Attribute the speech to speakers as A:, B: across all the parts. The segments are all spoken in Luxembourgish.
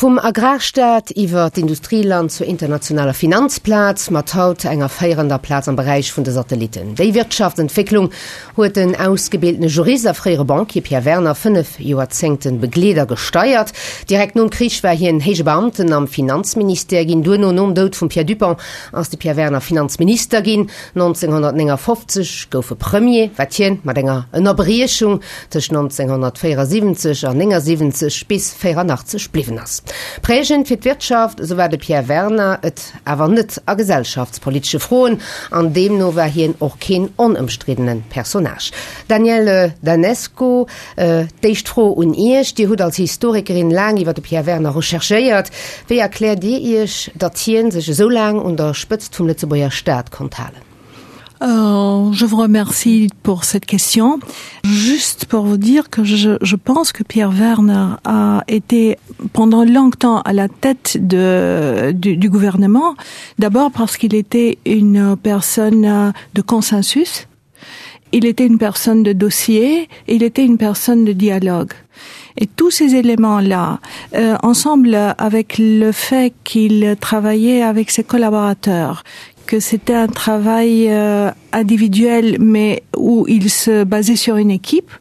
A: Vum Agrarstaat iwwer d'Industrieland zur internationaler Finanzplaz, mat haut enger féierender Plaz am Beräich vun de Satellitten. Déi Wirtschaftsentwécklung huet den ausgebildene Jurist a fréiere Banquier Pierre Werner 5 Joerzéngte begleet a gesteiert. Direkt nom Krich war hien héije Beamten am Finanzministère ginn. Duerno, nom Doud vum Pierre Dupong, ass de Pierre Werner Finanzminister ginn. 1959 gouf e Premier, wat hien mat enger Ënnerbriechung tëscht 1974 an 79 bis 84 bliwwen ass. Prägend fir d'Wirtschaft, esou war de Pierre Werner et awer net a gesellschaftspolitesche Froen, an deemno war hien och keen onëmstriddene Personnage. Danièle Danesco, d'éischt Fro un Iech, Dir hutt als Historikerin laang iwwer de Pierre Werner recherchéiert. Wéi erkläert Dir Iech, datt hien sech esou laang un der Spëtzt vum Lëtzebuerger Staat konnt halen?
B: Euh, je vous remercie pour cette question. Juste pour vous dire que je, je pense que Pierre Werner a été pendant longtemps à la tête de, du, du gouvernement, d'abord parce qu'il était une personne de consensus. Il était une personne de dossier, il était une personne de dialogue. Et tous ces éléments-là, euh, ensemble avec le fait qu'il travaillait avec ses collaborateurs, que c'était un travail euh, individuel mais où il se basait sur une équipe,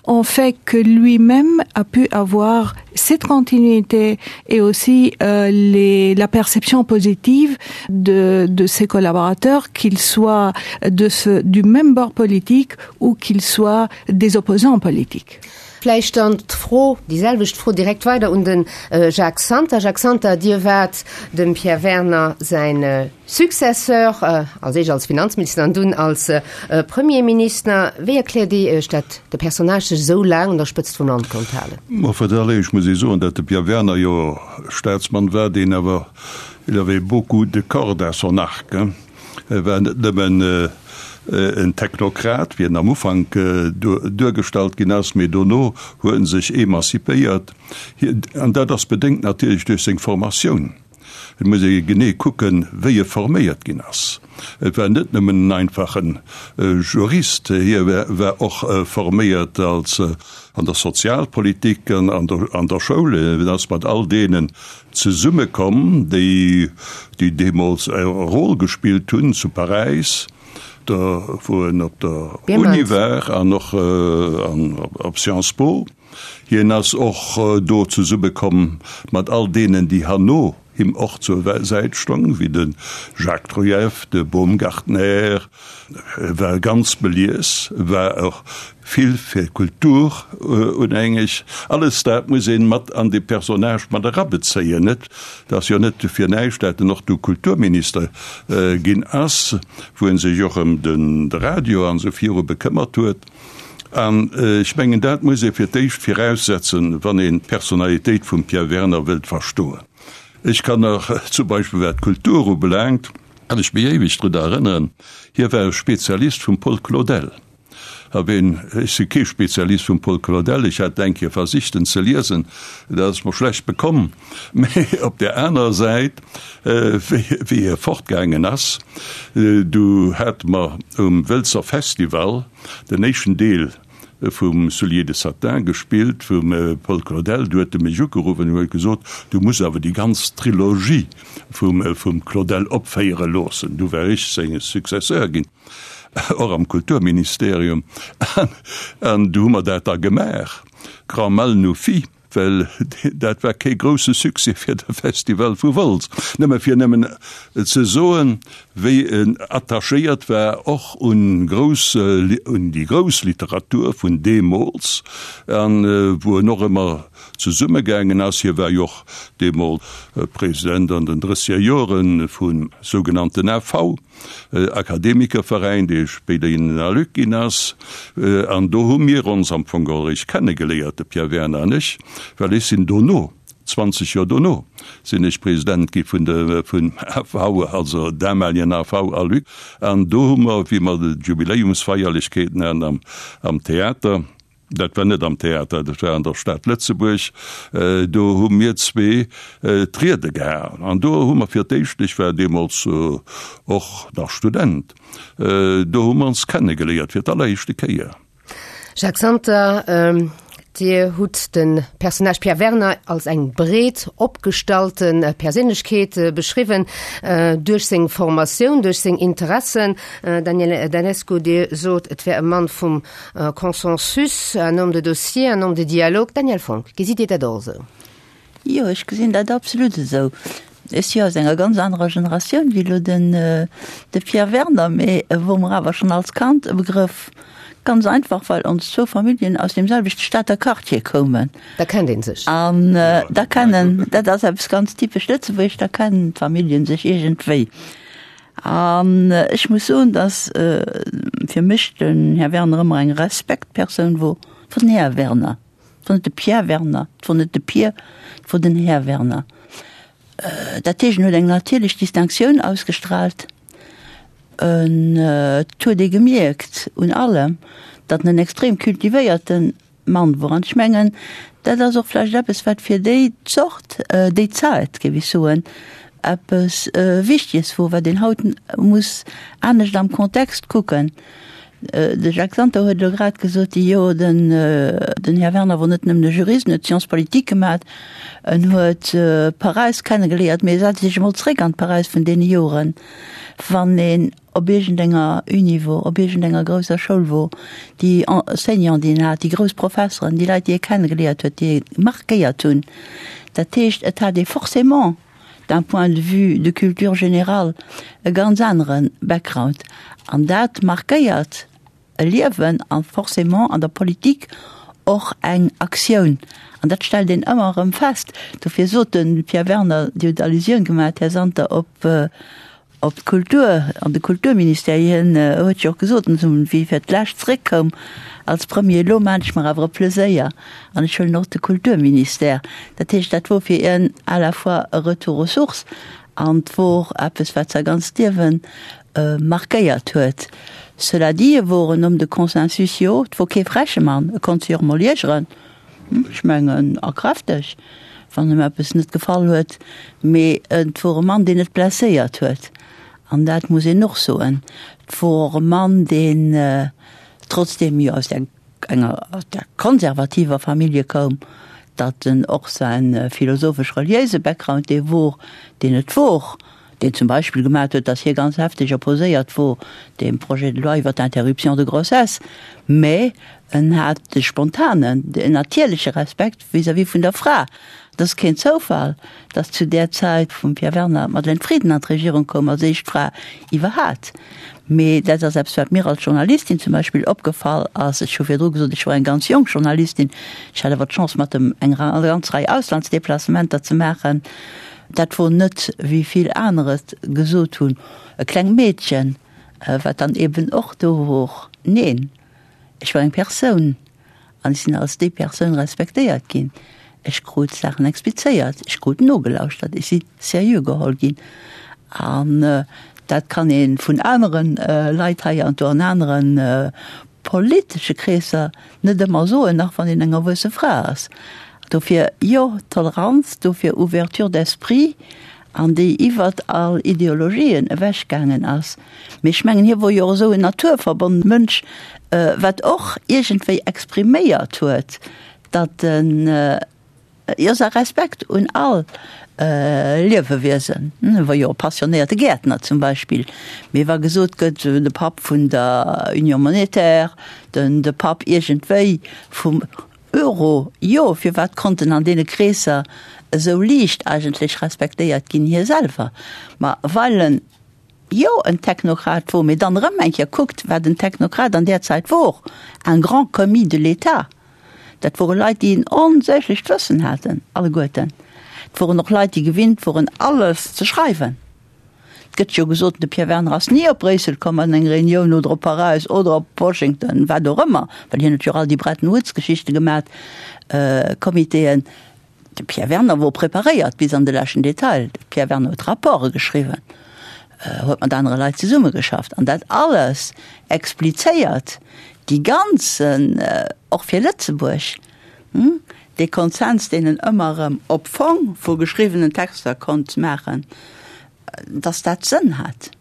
B: ont fait que lui-même a pu avoir cette continuité et aussi euh, les, la perception positive de, de ses collaborateurs, qu'ils soient de ce, du même bord politique ou qu'ils soient des opposants politiques.
A: Vläicht dann d'Fro, déi selwecht Fro direkt weider un de Jacques Santer. Jacques Santer, Dir waart dem Pierre Werner säin Successeur, als éischt als Finanzminister an dunn als Premierminister. Wéi erkläert Dir Iech, datt de Personnage sech esou laang un der Spëtzt vum Land konnt halen?
C: Ma fir d'alleréischt muss ee soen, datt de Pierre Werner jo Staatsmann war, deen awer, il avait beaucoup de cordes à son arc, hein. E war net nëmmen en Technokrat, wéi en am Ufank duergestallt ginn ass, mee dono huet en sech emancipéiert. An dat ass bedéngt natierlech duerch seng Formatioun. Et muss ee genee kucken, wéi e forméiert ginn ass. Et war net nëmmen en einfache Jurist, hie war och forméiert als an der Sozialpolitik an an der Schoul. En ass mat all deenen zesummekomm, déi déi deemools e Rôle gespillt hunn zu Paräis, do wou en op der Uni war an och op Sciences Po. Hien ass och do zesummekomm mat all deenen, déi herno him och zur Säit stong, wéi de Jacques Trujeff, de Baumgartner. E war ganz belies, war och vill fir d'Kultur unhängeg. Alles dat muss een mat an dee Personnage mat erabezéien. Et ass jo net fir näischt, dat en och du Kulturminister ginn ass, wou en sech och ëm de Radio an esou viru bekëmmert huet. An ech mengen, dat muss ee fir d'éischt viraussetzen, wann een d'Personalitéit vum Pierre Werner wëllt verstoen. Ech kann nach zum Beispill, wat d'Kultur ubelaangt, kann ech mech éiweg drun erënneren, hie war e Spezialist vum Paul Claudel. A ween, ech si kee Spezialist vum Paul Claudel, ech hat eng Kéier versicht en ze liesen, dat ass mer schlecht bekomm, mä op där anerer Säit, wéi hie fortgaangen ass, du hate mer um Wëlzer Festival den éischten Deel vum Souliers de satin gespillt vum Paul Claudel, du huet e mech ugeruff an huet gesot, du muss awer déi ganz Trilogie vum Claudel opféiere loossen. Du war ech seng Successeur ginn, och am Kulturministerium, an du hu mer dat da gemaach, Grand mal nous fit. Well dat war kee grousse Succès fir de Festival vu Wolz. Nëmme fir nëmmen ze soen, wéi en attachéiert war och un grouss, un déi grouss Literatur vun deemools an wou en och ëmmer zesummegaangen ass. Hie war jo och deemools President an den drësseger Jore vum sougenannten AV. Akademikerveräin, dee spéider in den Aluc ginn ass. An do hu mir ons am Fong geholl eréischt kennegeléiert, de Pierre Werner an ech, well ech sinn dono, 20 Joer dono, sinn ech President gi vun de, vum AV, also damaligen AV Aluc. An do hu mer, wéi mer d'Jubiläumsfeierlechkeeten haten am, am Theater, Dat war net am Theater, dat war an der Stad Lëtzebuerg. Do hu mir zwee d'Riede gehalen. An do hu mer fir d'éischt, ech war deemools och nach Student, do hu mer ons kennegeléiert fir d'alleréischte Kéier.
A: Jacques Santer, Dir hutt de Personnage Pierre Werner als eng breet opgestallte Perséinlechkeet beschriwwen, duerch seng Formatioun, duerch seng Interessen. Danièle Danesco, Dir sot, et wär e Mann vum Consensus, un homme de dossier, un homme de dialogue. Danièle Fonck, gesitt Dir dat och esou?
D: Jo, ech gesinn dat absolut esou. Ech si aus enger ganz anerer Generatioun wéi elo den de Pierre Werner, mee e wor mer awer schonn als Kand e Begrëff. Ganz einfach, well ons zwou Familljen aus deem selwechte Stater Quartier koumen.
A: Da kennt ee sech.
D: An da kennen, dat ass eppes ganz typesch Lëtzebuergesch, da kennen d'Familljen sech iergendwéi. An ech muss soen, datt fir mech den Här Werner ëmmer eng Respektpersoun wor, wor den Här Werner. Et wor net de Pierre Werner, et wor net de Pier, et wor den Här Werner. Dat heescht, en huet eng natierlech Distinctioun ausgestrahlt. En, et huet ee gemierkt un allem, datt en en extrem cultivéierte Mann wor. An ech mengen, dat ass och vläicht eppes, wat fir déi Zort, déi Zäit, géif ech soen, eppes Wichtiges wor, wat een haut muss anescht am Kontext kucken. De Jacques Santer huet elo grad gesot, jo, den, den Här Werner wor net nëmmen e Jurist, en huet Sciences politiques gemat, en huet Paräis kennegeléiert, mee setz Iech emol zréck an d'Paräis vun deene Joren, wann een op iergendenger Uni wor, op iergendenger grousser Schoul wor, déi Enseignanten, déi een hat, déi grouss Professeren, déi Leit, déi ee kennegeléiert huet, déi ee markéiert hunn. Dat heescht, et hat ee forcément, d'un point de vue de culture générale, e ganz anere Background. An dat markéiert e Liewen a forcément an der Politik och eng Aktioun. An dat stellt een ëmmer erëm fest. Dofir sot de Pierre Werner, Dir hutt Allusioun gemaach, Här Santer, op Op d'Kultur an de Kulturministère, hien huet jo och gesot, wéi e fir d'lescht zréckkoum als Premier, elo maan ech mer awer e Pleséier an ech huelen och de Kulturministère. Dat heescht, dat wor fir hien à la fois e Retour aux sources an 't wor eppes, wat säi ganzt Liewe markéiert huet. Cela dit, e wor en Homme de consensus, jo, 't wor kee freche Mann, e konnt sech och emol iergeren. Ech mengen, a kräfteg, wann em eppes net gefall huet, mee et wor e Mann, deen net blesséiert huet, an dat muss een och soen. Et wor och e Mann, deen, trotzdem jo aus där enger, aus där konservativer Famillje koum, datt en och säin philosophesch-reliéise Background dee wor, deen et wor, deen zum Beispill gemat huet, datt hie ganz hefteg opposéiert wor deem Projet de loi iwwer d'Interruption de grossesse, mä en hat de spontanen, den natierleche Respekt vis-à-vis vun der Fra. Et ass keen Zoufall, datt zu där Zäit vum Pierre Werner d'Madeleine Frieden an d'Regierung koum als éischt Fra iwwerhat. Mee dat ass eppes, wat mir als Journalistin zum Beispill opgefall ass. Ech hu virdru gesot, ech wor eng ganz jonk Journalistin, ech hat awer d'Chance mat em eng ganz Rei Auslandsdeplacementer ze maachen. Dat wor net, wéi vill aner et gesot hunn, e klengt Meedchen, wat dann eben och do wor. Neen, ech war eng Persoun an ech sinn als déi Persoun respektéiert ginn. Ech krut Saachen explizéiert, ech krut nogelauschtert, ech si seriö geholl ginn. An dat kann ee vun anere Leit hei an do an anere politesche Kreesser net ëmmer soen, nach wann een eng erwuesse Fra ass. Dofir, jo, Toleranz, dofir Ouverture d'esprit, an déi iwwert all Ideologien ewechgaangen ass. Mee ech mengen, hie wor jo och esou en naturverbonnene Mënsch, wat och iergendwéi expriméiert huet, datt en, Jo, säi Respekt un all Liewewiesen. E wor jo e passionéierte Gäertner zum Beispill. Mee wa gesot gëtt, de Papp vun der Union monétaire, den de Papp iergendwéi vum Euro, jo, firwat konnt en an deene Kreesser esou liicht eigentlech respektéiert ginn, hie selwer? Ma well en jo en Technokrat wor, mee dann erëm eng Kéier kuckt, wat en Technokrat an där Zäit wor, un grand commis de l'État. Dat wore Leit, déi en onsäglecht Wëssen haten, alleguerten. Et woren och Leit, déi gewinnt woren, alles ze schreiwen. Et gëtt jo gesot, de Pierre Werner ass ni op Bréissel komm an eng Reunioun oder op Paräis oder op Washington, wat och ëmmer, well hien huet jo och all déi Bretton Woods-Geschichte gemat, Comitéen. De Pierre Werner wor preparéiert bis an de leschten Detail. De Pierre Werner huet Rapporte geschriwwen, huet mat anere Leit zesummegeschafft an dat alles explizéiert déi ganzen, och fir Lëtzebuerg, dee Konsens, deen en ëmmer erëm op Fong vu geschriwwenen Texter konnt maachen, dass dat Sënn hat.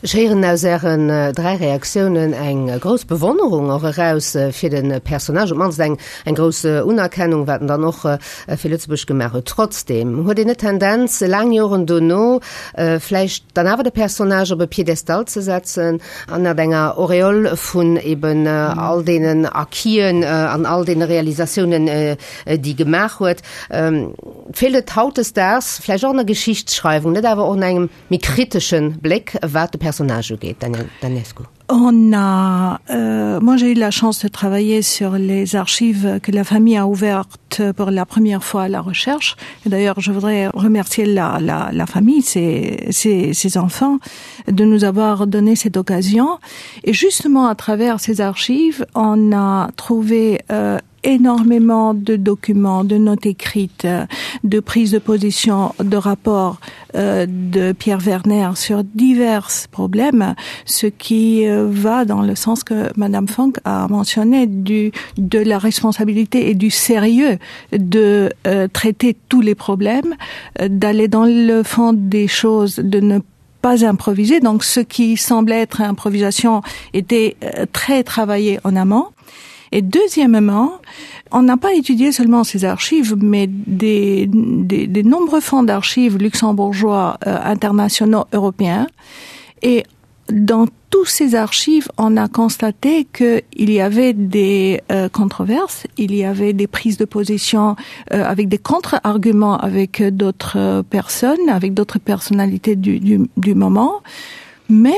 A: Ech héieren aus Ären 3 Reaktiounen eng grouss Bewonnerung och eraus fir de Personnage, op d'mannst eng eng grouss Unerkennung, wat en dann och fir Lëtzebuerg gemaach huet. Trotzdeem, huet een net d'Tendenz, laang Joren dono vläicht dann awer de Personnage op e Piedestal ze setzen, ënnert enger Auréole vun eben all deenen Acquisen an all deene Realisatiounen, déi gemaach huet? Feelt et hautdesdaags vläicht och an der Geschichtsschreiwung net awer och un engem méi kritesche Bléck, wat de Personnage ugeet, Danièle Danescu?
B: On a, euh, moi j'ai eu la chance de travailler sur les archives que la famille a ouvertes pour la première fois à la recherche. Et d'ailleurs, je voudrais remercier la, la, la famille, ses, ses, ses enfants, de nous avoir donné cette occasion. Et justement, à travers ces archives, on a trouvé euh, énormément de documents, de notes écrites, de prises de position, de rapports euh, de Pierre Werner sur divers problèmes, ce qui euh, va dans le sens que Madame Funk a mentionné du, de la responsabilité et du sérieux de euh, traiter tous les problèmes, euh, d'aller dans le fond des choses, de ne pas improviser. Donc ce qui semblait être improvisation était euh, très travaillé en amont. Et deuxièmement, on n'a pas étudié seulement ces archives, mais des, des, des nombreux fonds d'archives luxembourgeois euh, internationaux européens. Et dans tous ces archives, on a constaté qu'il y avait des euh, controverses, il y avait des prises de position euh, avec des contre-arguments avec d'autres euh, personnes, avec d'autres personnalités du, du, du moment. Mais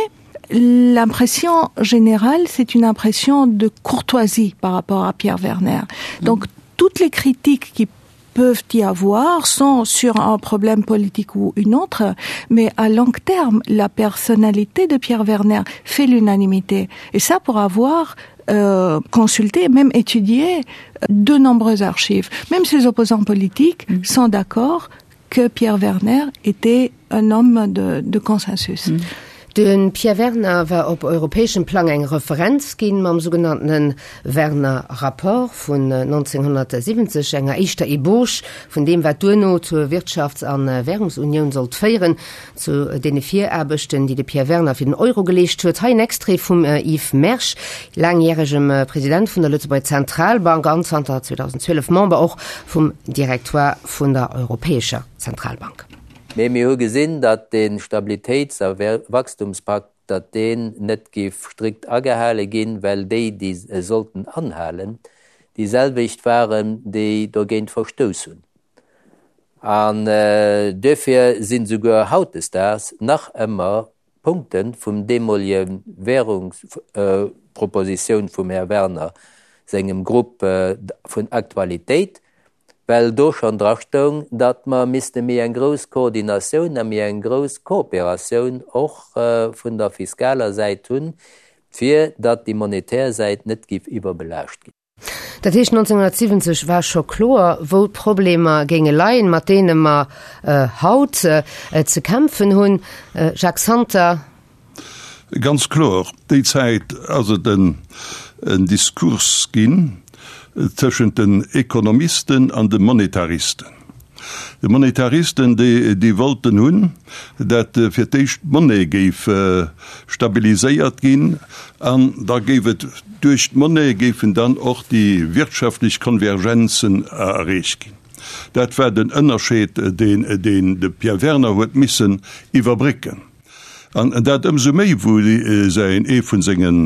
B: l'impression générale, c'est une impression de courtoisie par rapport à Pierre Werner. Donc toutes les critiques qui peuvent y avoir sont sur un problème politique ou une autre, mais à long terme, la personnalité de Pierre Werner fait l'unanimité. Et ça pour avoir euh, consulté, même étudié de nombreuses archives. Même ses opposants politiques mmh. sont d'accord que Pierre Werner était un homme de, de consensus.
A: Mmh. De Pierre Werner war op europäeschem Plang eng Referenz ginn, mam sougenanntene Werner-Rapport vun 1970, enger éischter Ebauche vun deem, wat duerno zur Wirtschafts a Währungsunioun sollt féieren, zu deene Viraarbechten, déi de Pierre Werner fir den Euro geleescht huet. Hei en Extrait vum Yves Mersch, laangjäregem President vun der Lëtzebuerger Zentralbank an zanter 2012 Member och vum Directoire vun der Europäescher Zentralbank.
E: Mee mir hu gesinn, datt dee Stabilitéits a Wachstumspakt, datt deen net géif strikt agehale ginn, well déi, déi e sollten anhalen, déi selwecht waren, déi dogéint verstouss hunn. An duerfir sinn souguer hautdesdaags nach ëmmer Punkte vum deemolege Währungspropositioun vum Här Werner sengem Grupp vun Aktualitéit, well do schonn drastoung, datt mer misste méi eng grouss Koordinatioun a méi eng grouss Kooperatioun och vun der fiskaler Säit hunn, fir datt déi monetär Säit net géif iwwerbelaascht ginn.
A: Dat heescht, 1970 war scho kloer, wou d'Problemer géinge leien, mat deene mer haut ze kämpfen hunn. Jacques Santer.
C: Ganz kloer, déi Zäit ass et en Diskurs ginn tëschent den Ekonomisten an de Monetaristen. De Monetaristen, déi wollten hunn, dat fir d'éischt d'Monnaie géif stabiliséiert ginn an da géif et duerch d'Monnaie géifen dann och déi wirtschaftlech Konvergenzen erreecht ginn. Dat war den Ënnerscheed, deen de Pierre Werner huet missen iwwerbrécken. An dat ëmsou méi, wou säin, ee vun sengen,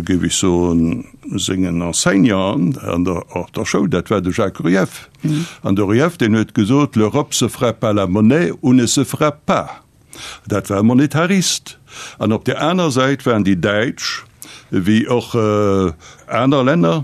C: géif ech soen, sengen Enseignanten an der, op der Schoul, dat war de Jacques Rueff. An de Rueff, deen huet gesot, L'Europe se fera par la monnaie ou ne se fera pas. Dat war e Monetarist. An op där aner Säit waren déi Däitsch, wéi och aner Länner,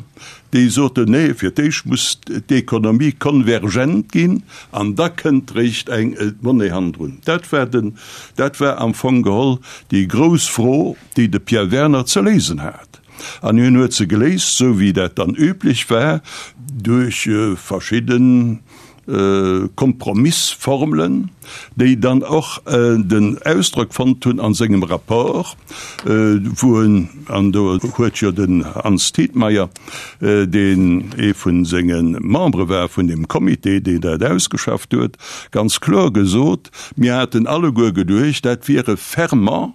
C: déi soten, Nee, fir d'éischt muss d'Ekonomie konvergent ginn an da kënnt réischt eng Monnaie hannendrun. Dat war den, dat war am Fong geholl déi grouss Fro, déi de Pierre Werner ze léisen hat. An hien huet se geléist, esou wéi dat dann üblech war, duerch verschidden Kompromissformelen, déi dann och den Ausdrock fonnt hunn a sengem Rapport, wou en, an do huet jo den Hans Tietmeyer, deen ee vu senge Membere war vun deem Comité, deen dat ausgeschafft huet, ganz kloer gesot, Mir haten alleguer geduecht, dat wier e Ferment.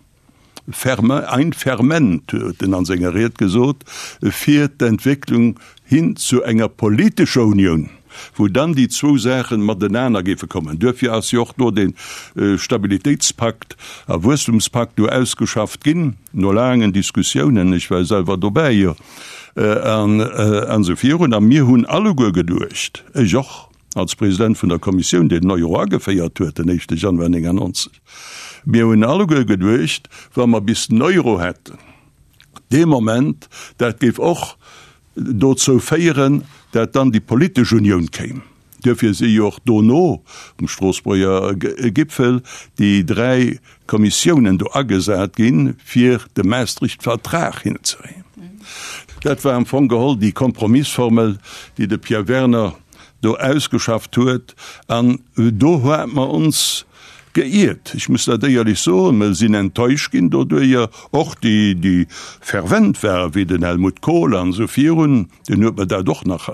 C: Ferme, ein Ferment, huet en an senger Ried gesot, fir d'Entwécklung hin zu enger politescher Unioun, wou dann déi zwou Saachen matenaner géife kommen. Duerfir ass jo och do dee Stabilitéitspakt a Wuesstumspakt do ausgeschafft ginn, no laangen Diskussiounen, ech war selwer dobäi, jo, an esou virun. A mir hunn alleguer geduecht, ech och als President vun der Kommissioun, déi den Euro ageféiert huet den éischte Januar 99, mir hunn alleguer geduecht, wa mer bis den Euro hätten, dee Moment, dat géif och dozou féieren, dat dann déi politesch Unioun kéim. Duerfir si jo och dono um Stroossbuerger Gipfel déi dräi Kommissiounen do agesat ginn, fir de Maastricht-Vertrag hinzekréien. Dat war am Fong geholl déi Kompromissformel, déi de Pierre Werner do ausgeschafft huet. An do hate mer ons geiert, ech muss dat éierlech soen, mer sinn enttäuscht ginn doduerjer, och déi, déi fervent waren, wéi den Helmut Kohl an esou virun, deen huet mer dat och nach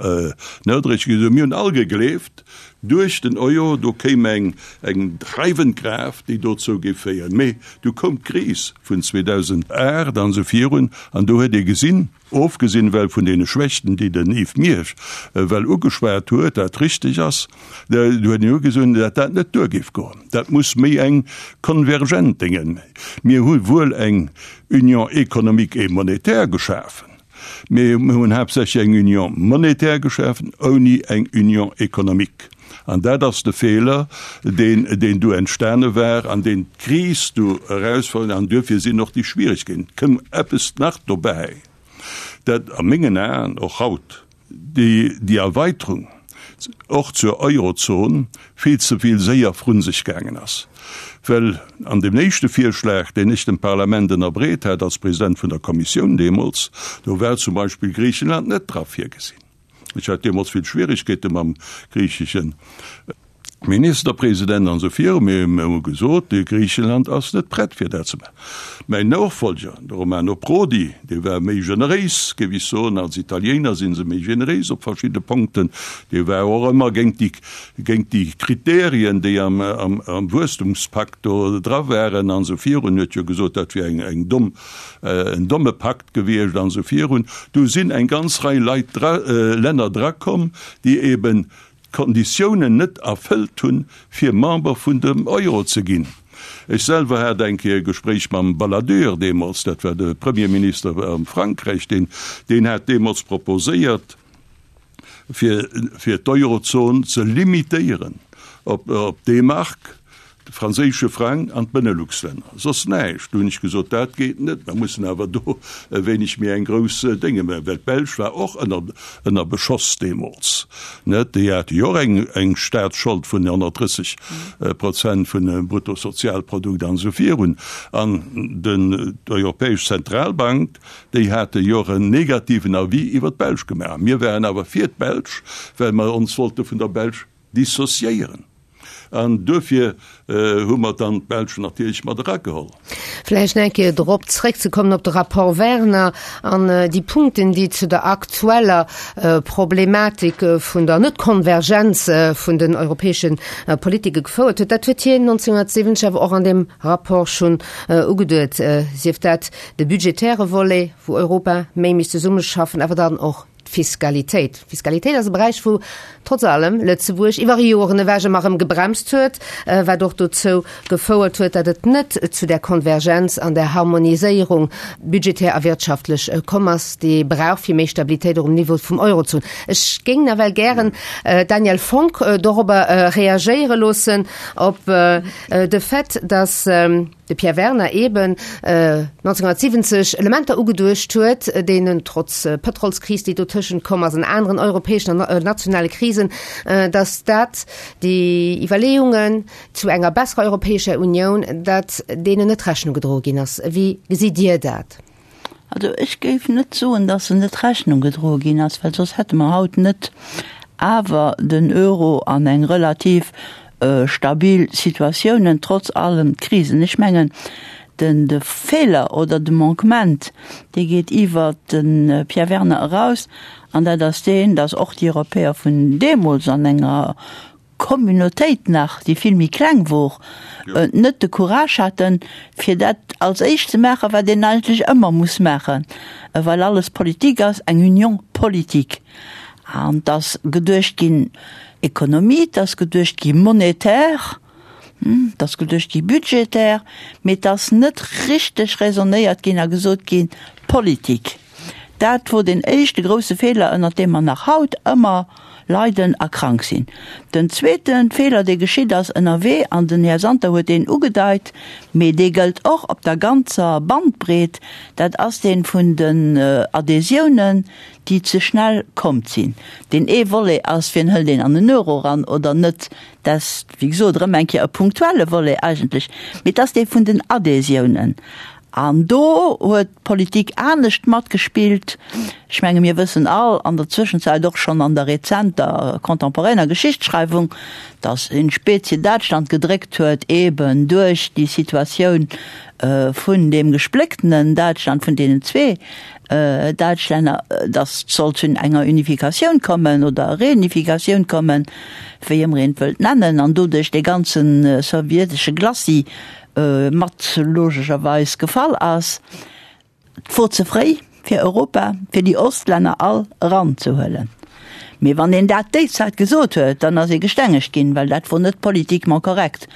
C: nodréiglech gesot, mir hunn all gegleeft, duerch den Euro, do kéim eng, eng dreiwend Kraaft, déi dozou géif féieren. Mee du koum d'Kris vun 2008 an esou virun, an do huet ee gesinn, Ofgesinn ewell vun deene Schwächten, déi den Yves Miersch ewell ugeschwat huet, wat richteg ass, do huet en ugesoen, datt dat net duer géif goen. Dat muss méi eng konvergent Déngen. Mir hu wuel eng Union économique et monétaire geschafen, mee mir hunn haaptsächlech eng Union monétaire geschafen ouni eng Union économique. An dat ass de Feeler, deen, deen du entstane war an deen d'Kris du erausfonnt. An duerfir sinn och déi Schwierigkeeten. Et kënn eppes nach dobäi, dat a mengen Aen och haut déi, déi Erweiterung och zur Eurozon vill ze vill séier vrun sech gaangen ass. Well an deem éischte Virschlag, deen ech dem Parlament ënnerbreet hat als President vun der Kommissioun deemools, do war zum Beispill Griichenland net dra virgesinn. Ech hat deemools vill Schwierigkeete mam griichesche Ministerpresident an esou viru. Mir hu gesot, Griichenland ass net prett fir dat ze maachen. Mäin Nofolger, de Romano Prodi, dee war méi generéis, géif ech soen. Als Italiener si se méi generéis op verschidde Punkten. Dee war och ëmmer géint déi, géint déi Kriterien, déi am, am Wuesstumspakt do dra waren an esou virun. Huet jo gesot, dat wier eng, eng domm, en domme Pakt. Gewiescht an esou virun. Do sinn eng ganz Rei Leit dra, Länner drakomm, déi eben d'Konditiounen net erfëllt hunn, fir Member vun dem Euro ze ginn. Ech selwer hat eng Kéier e Gespréich mam Balladur deemools, dat war de Premierminister am Frankräich, deen, deen hat deemools proposéiert, fir, fir d'Eurozon ze limitéieren op, op D-Mark, de franséische Frang an d'Benelux-Länner, soss näischt. Du hunn ech gesot, dat geet net, mer mussen awer do e wéineg méi eng grouss Dénge maachen, well d'Belsch war och ënner, ënner Beschoss deemools, net? Déi hate jo och eng, eng Staatsschold vun 130 Prozent vun dem Bruttosozialprodukt an esou virun. An den, d'Europäesch Zentralbank, Déi hate jo och en negativen Avis iwwer d'Belsch gemaach. Mir waren awer fir d'Belsch, well mer ons wollte vun der Belsch dissociéieren. An duerfir hu mer dann d'Belsch natierlech mat erageholl.
A: Vläicht nach eng Kéier drop zréckzekommen, op de Rapport Werner an déi Punkten, déi zu der aktueller Problematik vun der Net-Konvergenz vun den europäesche Politike gefouert huet. Dat huet hien 1970 awer och an deem Rapport schonn ugeduet, sief dat De budgetäre Volet, wou Europa méi misst zesummeschaffen, awer dann och d'Fiskalitéit. D'Fiskalitéit ass e Beräich, wou trotz allem Lëtzebuerg iwwer Joren ewech ëmmer erëm gebremst huet, wat och dozou gefouert huet, datt et net zu där Konvergenz an där Harmoniséierung budgetär a wirtschaftlech komm ass, déi ee brauch, fir méi Stabilitéit och um Niveau vum Euro ze hunn. Ech géing nawell gären d'Danièle Fonck dorobber reagéiere loossen, op de Fait, datt, de Pierre Werner eben 1970 Elementer ugeduecht huet, deenen trotz Pëtrolskris, déi dotëschent komm ass, an aneren europäeschen an nationale Krisen, datt dat déi Iwwerleeungen zu enger besserer Europäescher Unioun, datt deenen net Rechnung gedroe ginn ass. Wéi gesitt Dir dat?
D: Also ech géif net soen, datt se net Rechnung gedroe ginn ass, well soss hätte mer haut net awer den Euro an eng relativ stabil Situatiounen, trotz allen Krisen. Ech mengen, den de Feeler oder de Manquement, dee geet iwwert de Pierre Werner eraus, an dat ass deen, datt och déi Europäer vun deemools an enger. Communautéit nach, déi vill méi kleng wor, net de Courage haten, fir dat als éischt ze maachen, wat een eigentlech ëmmer muss maachen, well alles Politik ass, eng Union politique. An et ass geduecht ginn Économie, et ass geduecht gi monétaire, et ass geduecht gi budgétaire, mee et ass net richteg raisonnéiert ginn a gesot ginn Politik. Dat wor deen éischte grousse Feeler, ënnert deem mer nach haut ëmmer leiden a krank sinn. Den zweete Feeler, dee geschitt ass ënnerwee, an den Här Santer huet deen ugedeit, mee dee gëllt och op der ganzer Bandbreet, dat ass dee vun den Adhésiounen, déi ze schnell kommt sinn. Deen ee Volet ass, wien hëlt een an den Euro eran oder net, dat ass, wéi gesot, erëm eng Kéier e punktuelle Volet eigentlech, mee et ass dee vun den Adhésiounen. An do huet d'Politik anescht matgespillt. Ech menge mir wëssen all, an der Zwëschenzäit och schonn an der rezenter contemporainer Geschichtsschreiwung, datt in specie Däitschland gedréckt huet, eben duerch déi Situatioun vun deem gesplécktenen Däitschland, vun deenen zwee Däitschlänner, datt et sollt zu enger Unifikatioun kommen oder Reunifikatioun kommen, wéi ëmmer een et wëllt nennen, an doduerch dee ganze sowjetesche Glacis mat logescherweis gefall ass. Et wor ze fréi fir Europa, fir déi Ostlänner all eranzehuelen. Mee wann een dat déi Zäit gesot huet, dann ass ee gestengegt ginn, well dat wor net politiquement correct.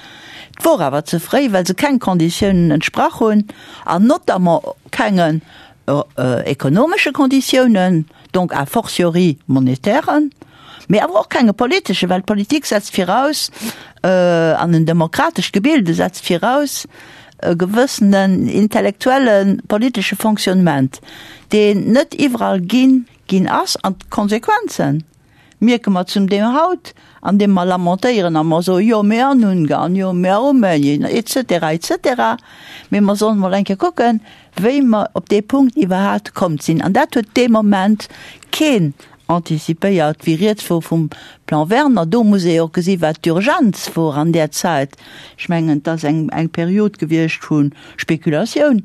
D: Et wor awer ze fréi, well se keng Konditiounen entsprach hunn, an notamment kengen ekonomesche Konditiounen, donc a fortiori monetären, mee awer och kenge politeschen, well d'Politik setzt viraus, an en demokratescht Gebilde setzt viraus e gewëssenen intellektuelle politesche Fonctionnement, deen net iwwerall ginn ginn ass, an d'Konsequenzen mierke mer zum Deel haut, andeem mer lamentéieren a mer soen, jo mee an Ungarn, jo mee a Rumänien, et cetera, et cetera. Mee mer sollen emol eng Kéier kucken, wéi mer op dee Punkt iwwerhaapt komm sinn. An dat huet dee Moment keen anticipéiert, wéi rieds wor vum Plan Werner. Do muss ee jo och gesi wat d'Urgenz wor an där Zäit. Ech mengen, et ass eng, eng Period gewiescht vu Spekulatioun.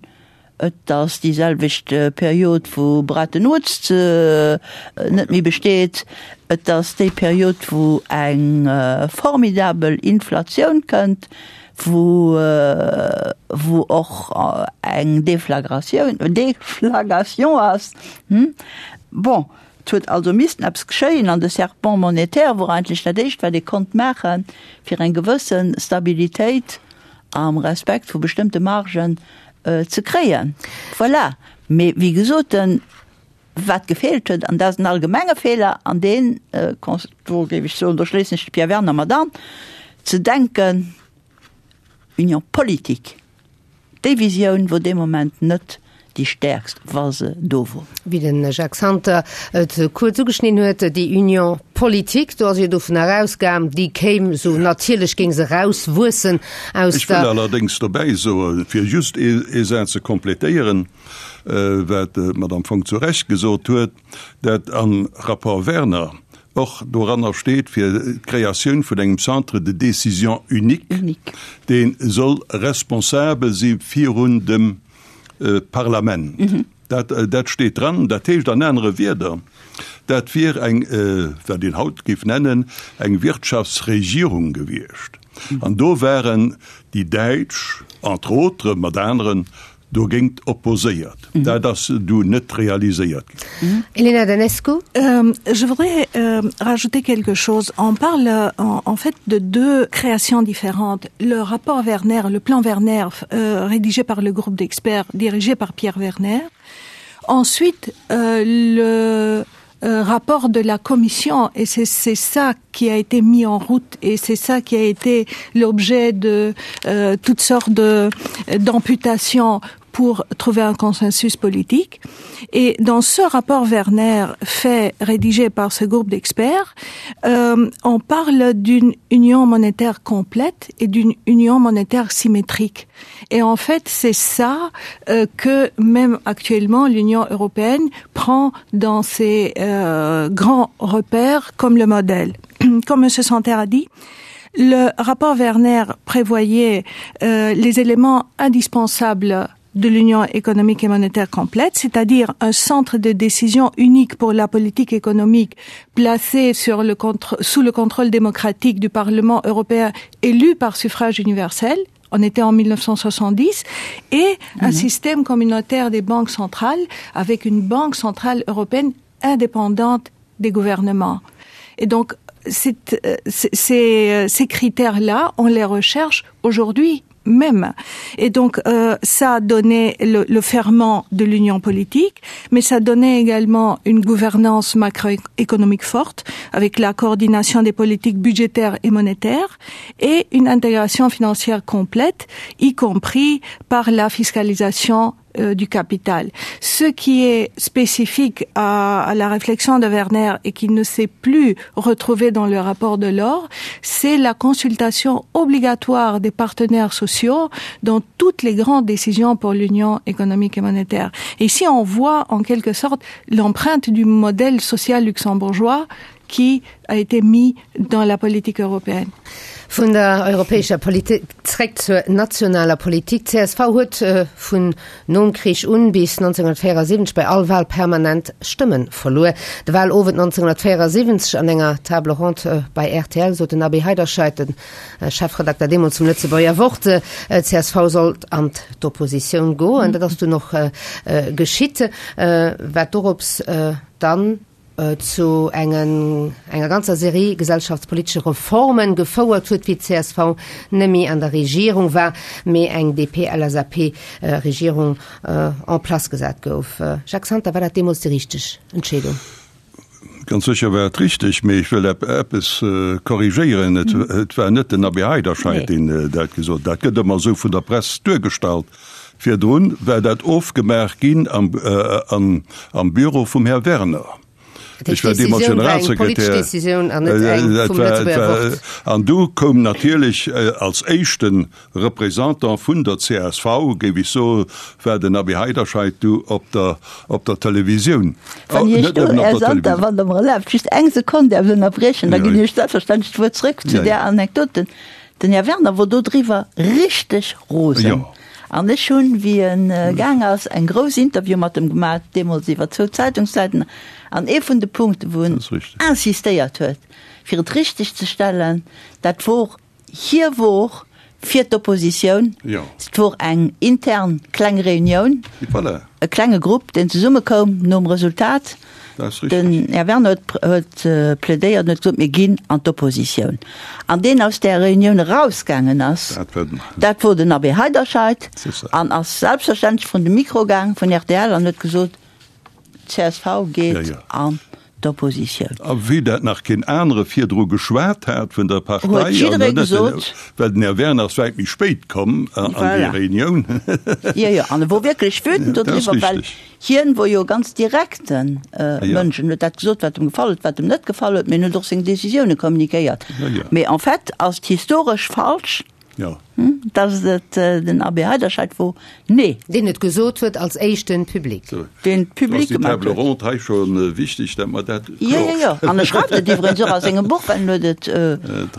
D: Et ass déi selwecht Period, wou Bretton Woods net méi besteet. Et ass déi Period, wou eng formidabel Inflatioun kënnt, wou, wou och eng Deflagratioun, Deflagration ass. Bon, et huet also missten eppes geschéien an de Serpent monétaire wor eigentlech dat éischt, wat ee konnt maachen, fir eng gewësse Stabilitéit am Respekt vu bestëmmte Margen ze kréien. Voilà. Mee wéi gesot, wat gefeelt huet, an dat ass en allgemenge Feeler, an deen, do géif ech soen, do schléissen ech de Pierre Werner mat an, ze denken, Union politique, déi Visioun wor dee Moment net déi stäerkst, wa se do wor.
A: Wéi de Jacques Santer et kuerz ugeschnidden huet, déi Union politique, do ass jo dovun erausgaang, déi kéim esou natierlech, géing se erauswuessen aus
C: Ech wëll
A: der.
C: allerdéngs dobäi soen, fir just ee Saz ze complétéieren, wat d'Madame Fonck zu Recht gesot huet, dat am Rapport Werner och doranner steet, fir d'Kreatioun vun engem Centre de décision unique, dee soll responsabel si virun dem Parlament. Dat, dat steet dran. Dat heescht an anere Wierder, dat wier eng, wat een haut géif nennen, eng Wirtschaftsregierung gewiescht. An do waren déi Däitsch, entre autres, mat aneren, dogéint opposéiert. Dat ass du net realiséiert
A: ginn. Elena Danescu.
B: Je voudrais rajouter quelque chose. On parle en fait de deux créations différentes. Le rapport Werner, le plan Werner rédigé par le groupe d'experts dirigé par Pierre Werner. Ensuite le rapport de la commission et c'est ça qui a été mis en route et c'est ça qui a été l'objet de euh, toutes sortes d'amputations pour trouver un consensus politique. Et dans ce rapport Werner fait rédigé par ce groupe d'experts, euh, on parle d'une union monétaire complète et d'une union monétaire symétrique. Et en fait, c'est ça euh, que même actuellement l'Union européenne prend dans ses euh, grands repères comme le modèle. Comme M. Santerre a dit, le rapport Werner prévoyait euh, les éléments indispensables. de l'Union économique et monétaire complète, c'est-à-dire un centre de décision unique pour la politique économique placé sur le contre, sous le contrôle démocratique du Parlement européen élu par suffrage universel, on était en 1970 et mm -hmm. un mhm. système communautaire des banques centrales avec une banque centrale européenne indépendante des gouvernements. Et donc cette, euh, ces, euh, ces critères là, on les recherche aujourd'hui même. Et donc euh, ça a donné le, le ferment de l'union politique, mais ça donnait également une gouvernance macroéconomique forte avec la coordination des politiques budgétaires et monétaires et une intégration financière complète, y compris par la fiscalisation euh, du capital. Ce qui est spécifique à, à la réflexion de Werner et qui ne s'est plus retrouvé dans le rapport de l'or, c'est la consultation obligatoire des partenaires sociaux dans toutes les grandes décisions pour l'Union économique et monétaire. Et ici on voit en quelque sorte l'empreinte du modèle social luxembourgeois qui a été mis dans la politique européenne.
A: Vun der europäescher Politik zréck zur nationaler Politik. D'CSV huet vun nom Krich un bis 1974 bei all Wahl permanent Stëmme verluer. De Wahlowend 1974 an enger Table ronde bei rtl sot den Abbé Heiderscheid, de Chefredakter deemools vum Lëtzebuerger Wort, d'CSV sollt an d'Oppositioun goen. Dat ass dunn och geschitt, wat dorops dann zu engen enger ganzer Serie gesellschaftspolitesche Reformen gefouert huet, wéi d'CSV nëmme an der Regierung war, mee eng DP-LSAP-Regierung en place gesat gouf. Jacques Santer, war dat deemools déi richteg Entscheedung?
C: Ganz sécher war et richteg, mee ech wëll eppes korrigéieren, Et war net den Abbé Heiderscheid, deen dat gesot huet. Dat gëtt ëmmer esou vun der Press duergestallt. Virdrun war dat ofgemaach ginn am Büro vum Här Werner.
A: Ech war deemools Generalsekretär.
C: An du koum natierlech als éischte Représentant vun der csv, géif ech soen, war den Abbé Heiderscheid du op der Televisioun.
D: Wann Iech do, Här Santer, wann Der mer erlaabt, just eng Sekonn däerf ënnerbriechen, da ginn ech selbstverständlech d'Wuert zrëck zu där Anekdote. Den Här Werner wor do driwwer richteg rosen. An ech hunn, wéi en gaang ass, eng grouss Interview mat em gemaach, deemools iwwer zwou Zeitungssäiten. An ee vun de Punkten, wou en insistéiert huet, fir et richteg ze stellen, dat wor, hie wor fir d'Oppositioun. Et wor eng intern kleng Reunioun, e klenge Grupp, deen zesummekoum nom Resultat. Den Här Werner huet plädéiert an huet gesot, mir ginn an d'Oppositioun. An deen aus där Reunioun erausgaangen ass, dat wor den Abbé Heiderscheid an ass selbstverständlech vrun de Mikro gaang vun rtl an huet gesot, d'CSV geet an d'Oppositioun.
C: A vue dat nach keen anere virdru geschwat hat vun der Partei,
D: Huet jidderee gesot.
C: Well den Här Werner ass wäit méi spéit komm an déi Reunioun.
D: Jo, jo, an e wor wierklech wütend dodriwwer, well Hien wor jo e ganz direkte Mënsch en huet dat gesot, wat em gefall huet, wat em net gefall huet, mee en huet och seng Décisioune communiquéiert. Mee en fait ass et historesch falsch, datt et den Abbé Heiderscheid wor. Nee.
A: Deen et gesot huet als éischten public.
D: Deen et public
C: gemaach huet. Ass déi Table ronde hei scho wichteg, datt mer dat
D: kloer. Jo, jo, jo. An e schreift et iwwregens och a sengem Buch, well en huet et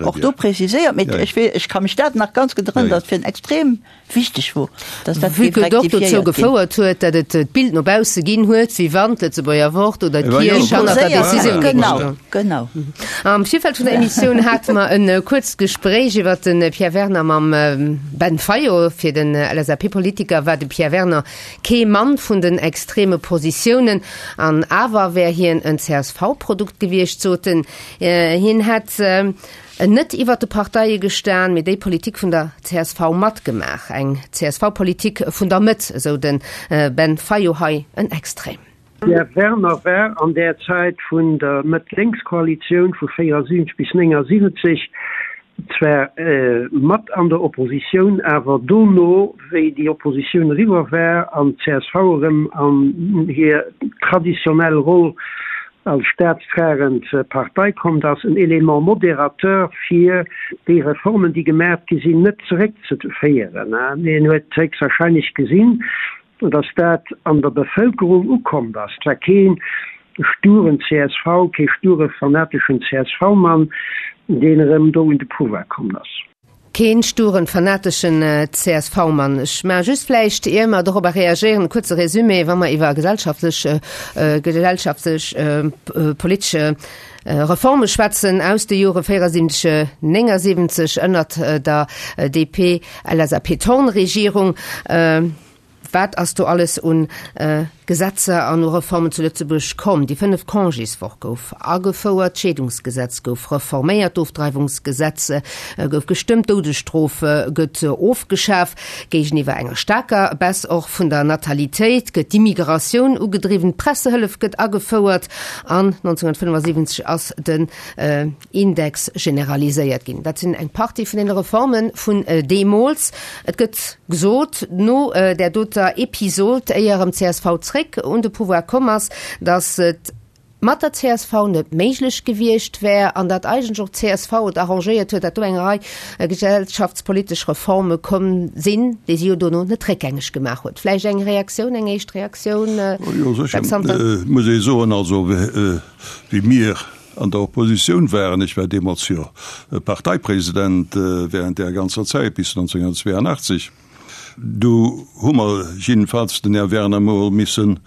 D: och do preziséiert. Mee ech ka mech dat nach ganz gutt erënneren, datt fir en extrem wichteg wor, dass dat
A: géif
D: Vue que
A: et och dozou
D: rectifiéiert ginn.
A: gefouert huet, datt et d'Bild no bausse ginn huet, wéi wann d'Lëtzebuerger Wort oder d'Kierch hannert der Decisioun géing
D: Genau,
A: stoen.
D: genau.
A: Am Virfeld vun der Emissioun hate mer e kuerzt Gespréich iwwer de Pierre Werner mam Ben Fayot. Fir den LSAP-Politiker war de Pierre Werner kee Mann vun den extreme Positiounen, an awer wär hien en CSV-Produkt gewiescht, sot en. Hien hätt Net iwwert de Parteie gestan, mee déi Politik vun der csv matgemaach. Eng CSV-Politik vun der Mëtt, esou de Ben Fayot. Hei en Extrait.
F: Pierre Werner war an där Zäit vun der Mëtt-Lénks-Koalitioun vu 74 bis 79 zwar mat an der Oppositioun, awer dono, wéi déi Oppositioun eriwwer war an d'CSV erëm an hir traditionell Roll als staatstragend Partei kommt, ass en Élément modérateur fir déi Reformen, déi gemaach gi sinn, net zeréckzeféieren. Hien huet héchstwahrscheinlech gesinn, datt dat an der Bevëlkerung ukommt ass. Et war kee sturen csv, kee sture fanateschen CSV-Mann, deen erëm do un de Pouvoir komm ass.
A: Keen sturen, fanateschen CSV-Mann. Ech maache just vläicht, ier mer dorobber reagéieren, e kuerze Résumé, wa mer iwwer gesellschaftlech, gesellschaftlech politesche Reforme schwätzen aus de Jore 74, 79 ënnert der DP-LSAP-Thorn-Regierung. Wat ass do alles un Gesetzer an u Reformen zu Lëtzebuerg komm? Déi fënneft Congéswoch gouf agefouert, d'Scheedungsgesetz gouf reforméiert, d'Ofdreiwungsgesetz gouf gestëmmt, d'Doudesstrof gëtt ofgeschaf. Géigeniwwer enger staarker Baisse och vun der Natalitéit gëtt d'Immigratioun ugedriwwen, d'Pressehëllef gëtt agefouert an 1975 ass den Index generaliséiert ginn. Dat sinn eng Partie vun deene Reforme vun deemools. Et gëtt gesot, no där doter Episod, éier erëm csv zréck un de Pouvoir komm ass, datt et mat der csv net méiglech gewiescht wär an datt eigentlech och csv et arrangéiert huet, datt do eng Rei gesellschaftspolitesch Reforme komm sinn, déi si jo dono net réckgängeg gemaach huet. Vläicht eng Reaktioun, eng éischt Reaktioun,
C: Jo, sécher
A: Jacques Santer?
C: Muss ee soen, also wéi mir an der Oppositioun waren, ech war deemools jo Parteipresident während där ganzer Zäit bis 1982, du hu mer jiddefalls den Här Werner mol missen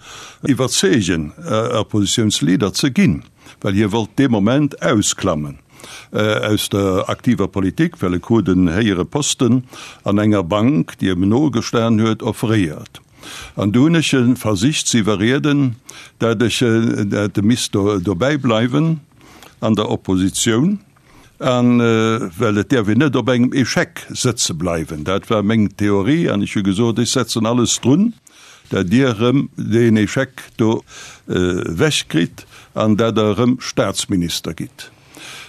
C: iwwerzeegen, Oppositiounsleader ze ginn, well hie wollt dee Moment ausklammen aus der aktiver Politik, well e krut en héijere Posten an enger Bank, déi em nogestan huet, offréiert. An du hunn ech e versicht ze iwwerrieden, dat ech, dat e misst do dobäi bleiwen an der Oppositioun, an well et däerf een net op engem Échec sëtze bleiwen. Dat war meng Theorie an ech hu gesot, ech setzen alles drun, dat Dir erëm deen Échec do ewechkritt an dat Der erëm Staatsminister gitt.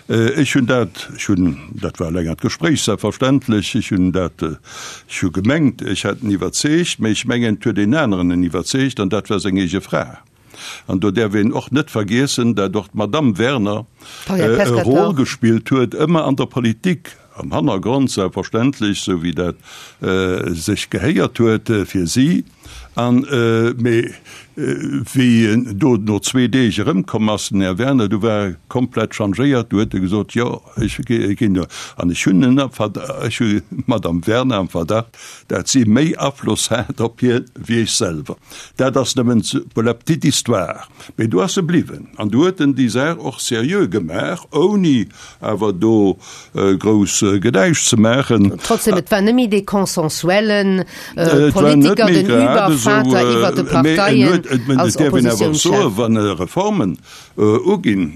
C: Ech hunn dat, ech hunn, dat war e längert Gespréich selbstverständlech, ech hunn dat, ech hu gemengt, ech hätt en iwwerzeegt, mä ech mengen, et huet een aneren en iwwerzeegt, an dat war seng eege Fra. An do däerf een och net vergiessen, dat och d'Madame Werner e Rôle gespillt huet, ëmmer an der Politik, am Hannergrond selbstverständlech, esou wéi dat sech gehéiert huet fir si. An, mee wéi en do no zwee Deeg erëmkomm ass, den Här Werner, du war e komplett changéiert, du huet e gesot, jo, ech ginn do. An ech hunn en am Verdacht, ech hu d'Madame Werner am Verdacht, dat si méi Afloss hat op hien wéi ech selwer. Dat ass nëmmen pour la petite histoire. Mee do ass e bliwwen an du huet en déi Saach och seriö gemaach, ouni awer do grouss Gedäisch ze maachen.
A: Trotzdem, et war net méi dee consensuelle Politiker, den Übervater iwwer de Parteien als Oppositiounschef.
C: Wann Reformen uginn,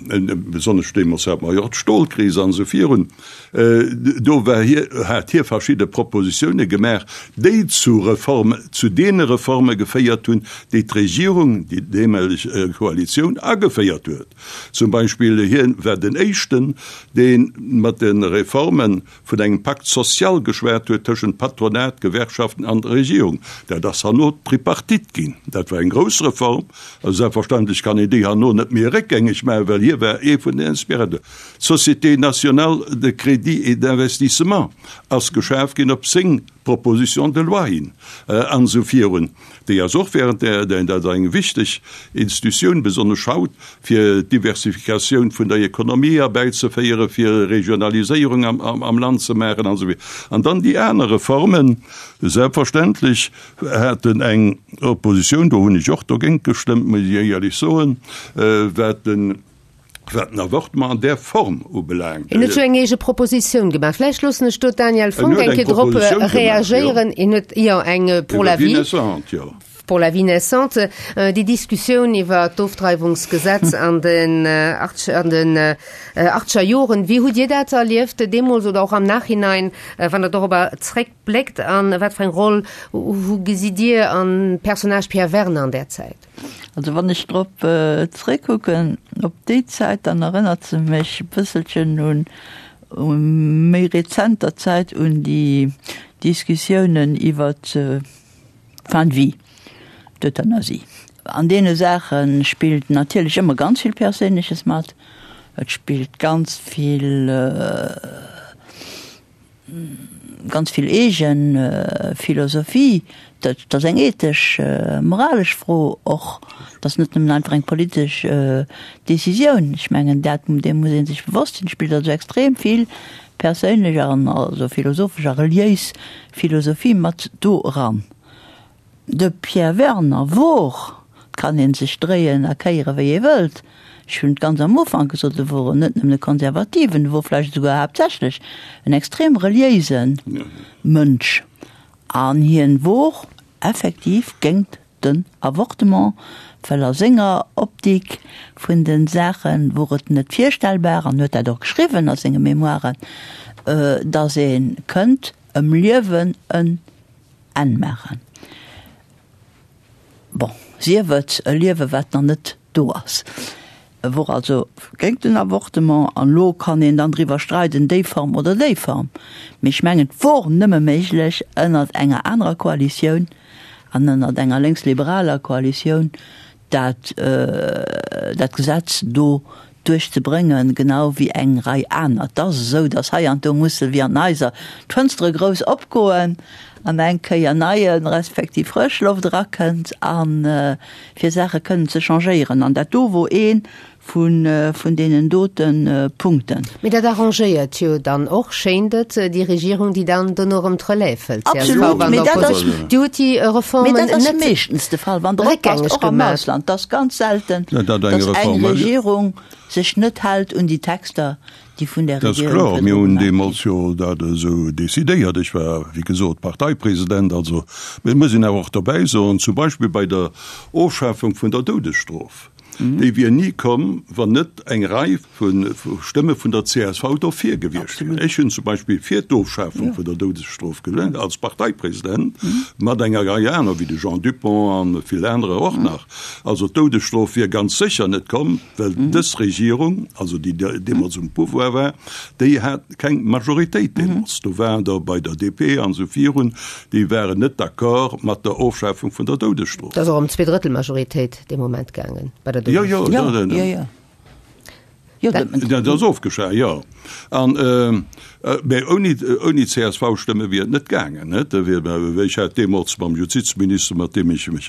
C: besonnesch deemools hate mer jo och d'Stolkris an esou virun, do war hie, hat hie verschidde Propositioune gemaach, déi zu Reform, zu deene Reforme geféiert hunn, déi d'Regierung, déi deemoleg Koalitioun ageféiert huet. Zum Beispill, hien war den éischten, dee mat de Reforme vun engem Pacte social geschwat huet tëschent Patronat, Gewerkschaften an der Regierung. Dat ass herno d'Tripartite ginn. Dat war eng grouss Reform. A selbstverständlech kann een déi herno net méi réckgängeg maachen, well hie war ee vun den Inspirateuren. D'Société nationale de crédit et d'investissement ass geschaf ginn op seng Proposition de loi hin an esou virun. Déi ass och während der, dat ass eng wichteg Institutioun, besonnesch haut, fir d'Diversifikatioun vun der Ekonomie erbäizeféieren, fir Regionaliséierung am Land ze maachen an esou virun. An dann déi aner Reformen, selbstverständlech haten eng Oppositioun, do hunn ech och dogéint gestëmmt, muss ech éierlech soen, wat den, Wat den Avortement an där Form ubelaangt.
A: Hien huet jo eng eege Propositioun gemaach. Vläicht loossen ech do d'Danièle Fonck eng Kéier drop reagéieren. Hien huet, jo, eng pour la vie. Pour la vie naissante. Déi Diskussioun iwwer d'Ofdreiwungsgesetz an den an den achtscher Joren, wéi hutt Dir dat erlieft deemools oder och am Nachhinein, wann Der dorobber zréckbléckt? A wat fir eng Roll hu gesitt Dir am Personnage Pierre Werner an där Zäit?
D: Also wann ech drop zréckkucken, op déi Zäit, dann erënnert se mech e bësselchen un méi rezenter Zäit, un déi Diskussiounen iwwer d'Fin de vie, d'Euthanasie. An deene Saache spillt natierlech ëmmer ganz vill Perséinleches mat. Et spillt ganz vill. Ganz vill eege Philosophie. Dat ass eng ethesch, moralesch Fro och. Dat ass net nëmmen einfach eng politesch Decisioun. Ech mengen, dat, deem muss ee sech bewosst sinn. Et spillt also extrem vill. perséinlech an also philosophesch a reliéis Philosophie mat do eran. De Pierre Werner wor, et kann ee sech dréien a kéiere wéi ee wëllt, ech hunn et ganz am Ufank gesot, e wor net nëmmen e Konservativen, e wor vläicht esouguer haaptsächlech en extrem reliéise Mënsch an hien wor effektiv géingt den Avortement, well a senger Optik vun de Saache wor et net virstellbar, an huet dat och geschriwwen a senge Memoiren, datt ee kënnt ëm Liewen en Enn maachen. Bon, sief et e Liewe wat nach net do ass. E wor also géint den Avortement an elo kann een dann driwwer streiden, déi Form oder déi Form. Mee ech mengen, et wor nëmme méiglech ënnert enger anerer Koalitioun an ënnert enger lénksliberaler Koalitioun, dat dat Gesetz do duerchzebréngen, genau wéi eng Rei aner. Et ass esou, datt hei an do musse wéi an den Haiser d'Fënstere grouss opgoen an eng Kéier neie respektiv frësch Loft erakënnt a fir Saache kënnen ze changéieren. An dat do wor ee vun vun deenen dote Punkten.
A: Mee dat arrangéiert jo dann och, schéint et, déi Regierung, déi dann dono erëm d'Relève hëlt,
D: csv Absolut,
A: an
D: mee dat ass,
A: der Déi huet déi Reformen
D: mee dat ass
A: net
D: meeschtens de Fall, wann Der oppasst,
A: réckgängeg
D: och am
A: gemaach.
D: Ausland, et ass ganz selten,
C: Ja, dat eng
D: datt eng
C: Reform,
D: Regierung sech net hält un déi Texter, déi vun där
C: Dat ass
D: Regierung
C: kloer,
D: virdru
C: mir hunn
D: gemaach ginn.
C: deemools jo dat esou decidéiert. Ech war, wéi gesot, Parteipresident. Also, mee et muss een awer och dobäi soen, zum Beispill bei der Ofschafung vun der Doudesstrof, Déi wier ni komm, wann net eng Rei vu Stëmme vun der csv dofir gewiescht wieren. Ech hunn zum Beispill fir d'Ofschafung vun der Doudesstrof gestëmmt, als Parteipresident, mat enger Rei aner, wéi de Jean Dupong a vill anerer och nach. Also d'Doudesstrof wier ganz sécher net komm, well dës Regierung, also déi deemools um Pouvoir war, déi hat keng Majoritéit deemools. Do waren der bei der DP an esou virun, déi waren net d'accord mat der Ofschafung vun der Doudesstrof.
A: Et ass och ëm Zweedrëttelmajoritéit. dee Moment gaangen
C: bei der Jo, jo,
D: ja, ja, ja.
C: Jo, dat ass ofgeschaf, jo. An mä ouni, ouni CSV-Stëmme wier et net gaangen, net? Da wier, ech hat deemools mam Justizminister, mat deem ech mech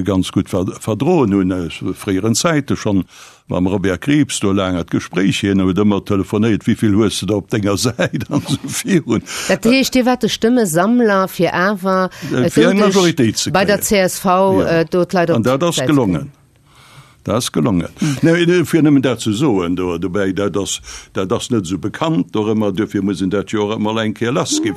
C: ganz gutt verdroen hunn aus fréieren Zäite schonn, mam Robert Krieps do laang an d'Gespréich, hien huet ëmmer telefonéiert, Wéi vill hues de der op denger Säit an esou virun.
A: Dat heescht, Dir waart de Stëmmesammler fir awer
C: Fir eng Majoritéit ze
A: bei der
C: kréien.
A: csv do d'Leit op
C: An dat ass
A: d'Säit ze kréien.
C: gelongen. Dat ass gelongen. Nee, fir nëmmen dat ze soen do dobäi, dat ass, dat ass net esou bekannt dorëmmer, duerfir muss een dat jo och emol eng Kéier lassginn.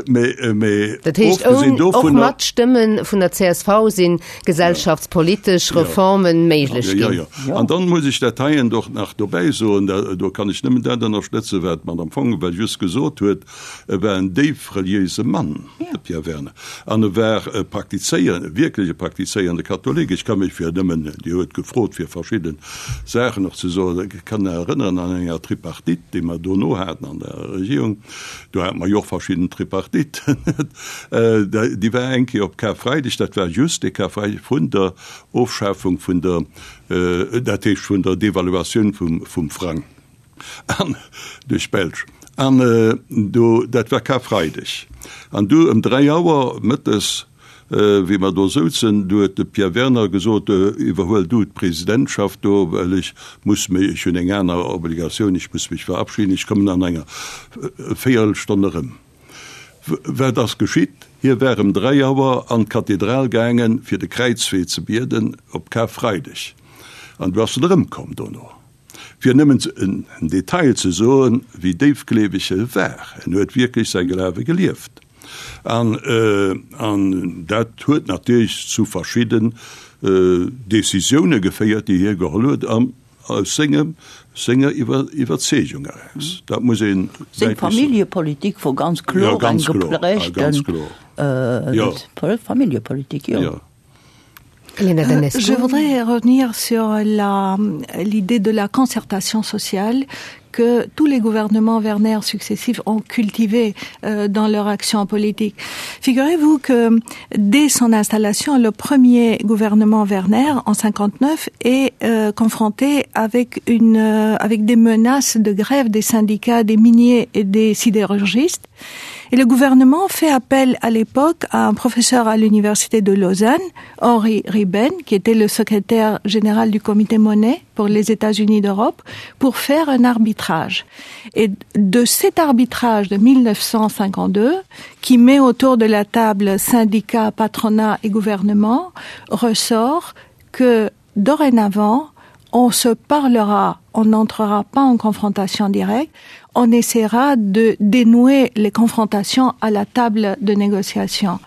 C: Mee, mee
A: Dat heescht,
C: ofgesinn
A: oun, och
C: dovunner.
A: mat Stëmme vun der csv sinn gesellschaftspolitesch Reformen méiglech
C: Ja,
A: ginn.
C: ja. An dann muss ech dat heien och nach dobäi soen, da, do kann ech nëmmen dat ënnerstëtzen, wat d'Madame Fonck just gesot huet, E war en déif reliéise Mann, de Pierre Werner, an e war e praktizéier, wierklech e praktizéierende Katholik. Ech ka mech fir nëmmen, Dir huet gefrot fir verschidde Saachen och ze soen, ech kann erënneren an enger Tripartite, déi mer dono haten an der Regierung, do hate mer jo och verschidden Tripartiten, déi war eng Kéier op Karfreideg, dat war just de Karfreideg vun der Ofschafung vun der, dat heescht vun der Devaluatioun vum Frang. An duerch d'Belsch. An do, dat war Karfreideg. An du ëm 3 Auer mëttes, wéi mer do souzen, du huet de Pierre Werner gesot, Iwwerhuel du d'Presidentschaft do, well ech muss mech, ech hunn eng aner Obligatioun, ech muss mech verabschieden, ech kommen an enger Véierelstonn erëm. Wat ass geschitt? Hie war ëm 3 Auer an d'Kathedral gaangen, fir de Kräizwee ze bieden op Karfreideg. An du ass en erëmkomm dono. Fir nëmmen en Detail ze soen, wéi déifgleeweg e war, en huet wierklech säi Glawe gelieft. An, an dat huet natierlech zu verschidden Decisioune geféiert, déi hie geholl huet, an aus sengem, senger Iwwerzeegung eraus. Dat muss een
D: Seng
C: däitlech soen.
D: Familljepolitik wor ganz kloer
C: Jo,
D: eng
C: ganz kloer,
D: geprägten
C: ganz kloer, jo.
D: Familljepolitik, jo.
C: Jo.
B: Euh, je voudrais revenir sur l'idée de la concertation sociale que tous les gouvernements Werner successifs ont cultivé euh, dans leur action politique. Figurez-vous que dès son installation, le premier gouvernement Werner en 59 est euh, confronté avec, une, euh, avec des menaces de grève des syndicats, des miniers et des sidérurgistes. Et le gouvernement fait appel à l'époque à un professeur à l'université de Lausanne, Henri Riben, qui était le secrétaire général du comité monnaie. pour les États-Unis d'Europe pour faire un arbitrage. Et de cet arbitrage de 1952, qui met autour de la table syndicats, patronat et gouvernement, ressort que dorénavant, on se parlera, on n'entrera pas en confrontation directe, on essaiera de dénouer les confrontations à la table de négociation.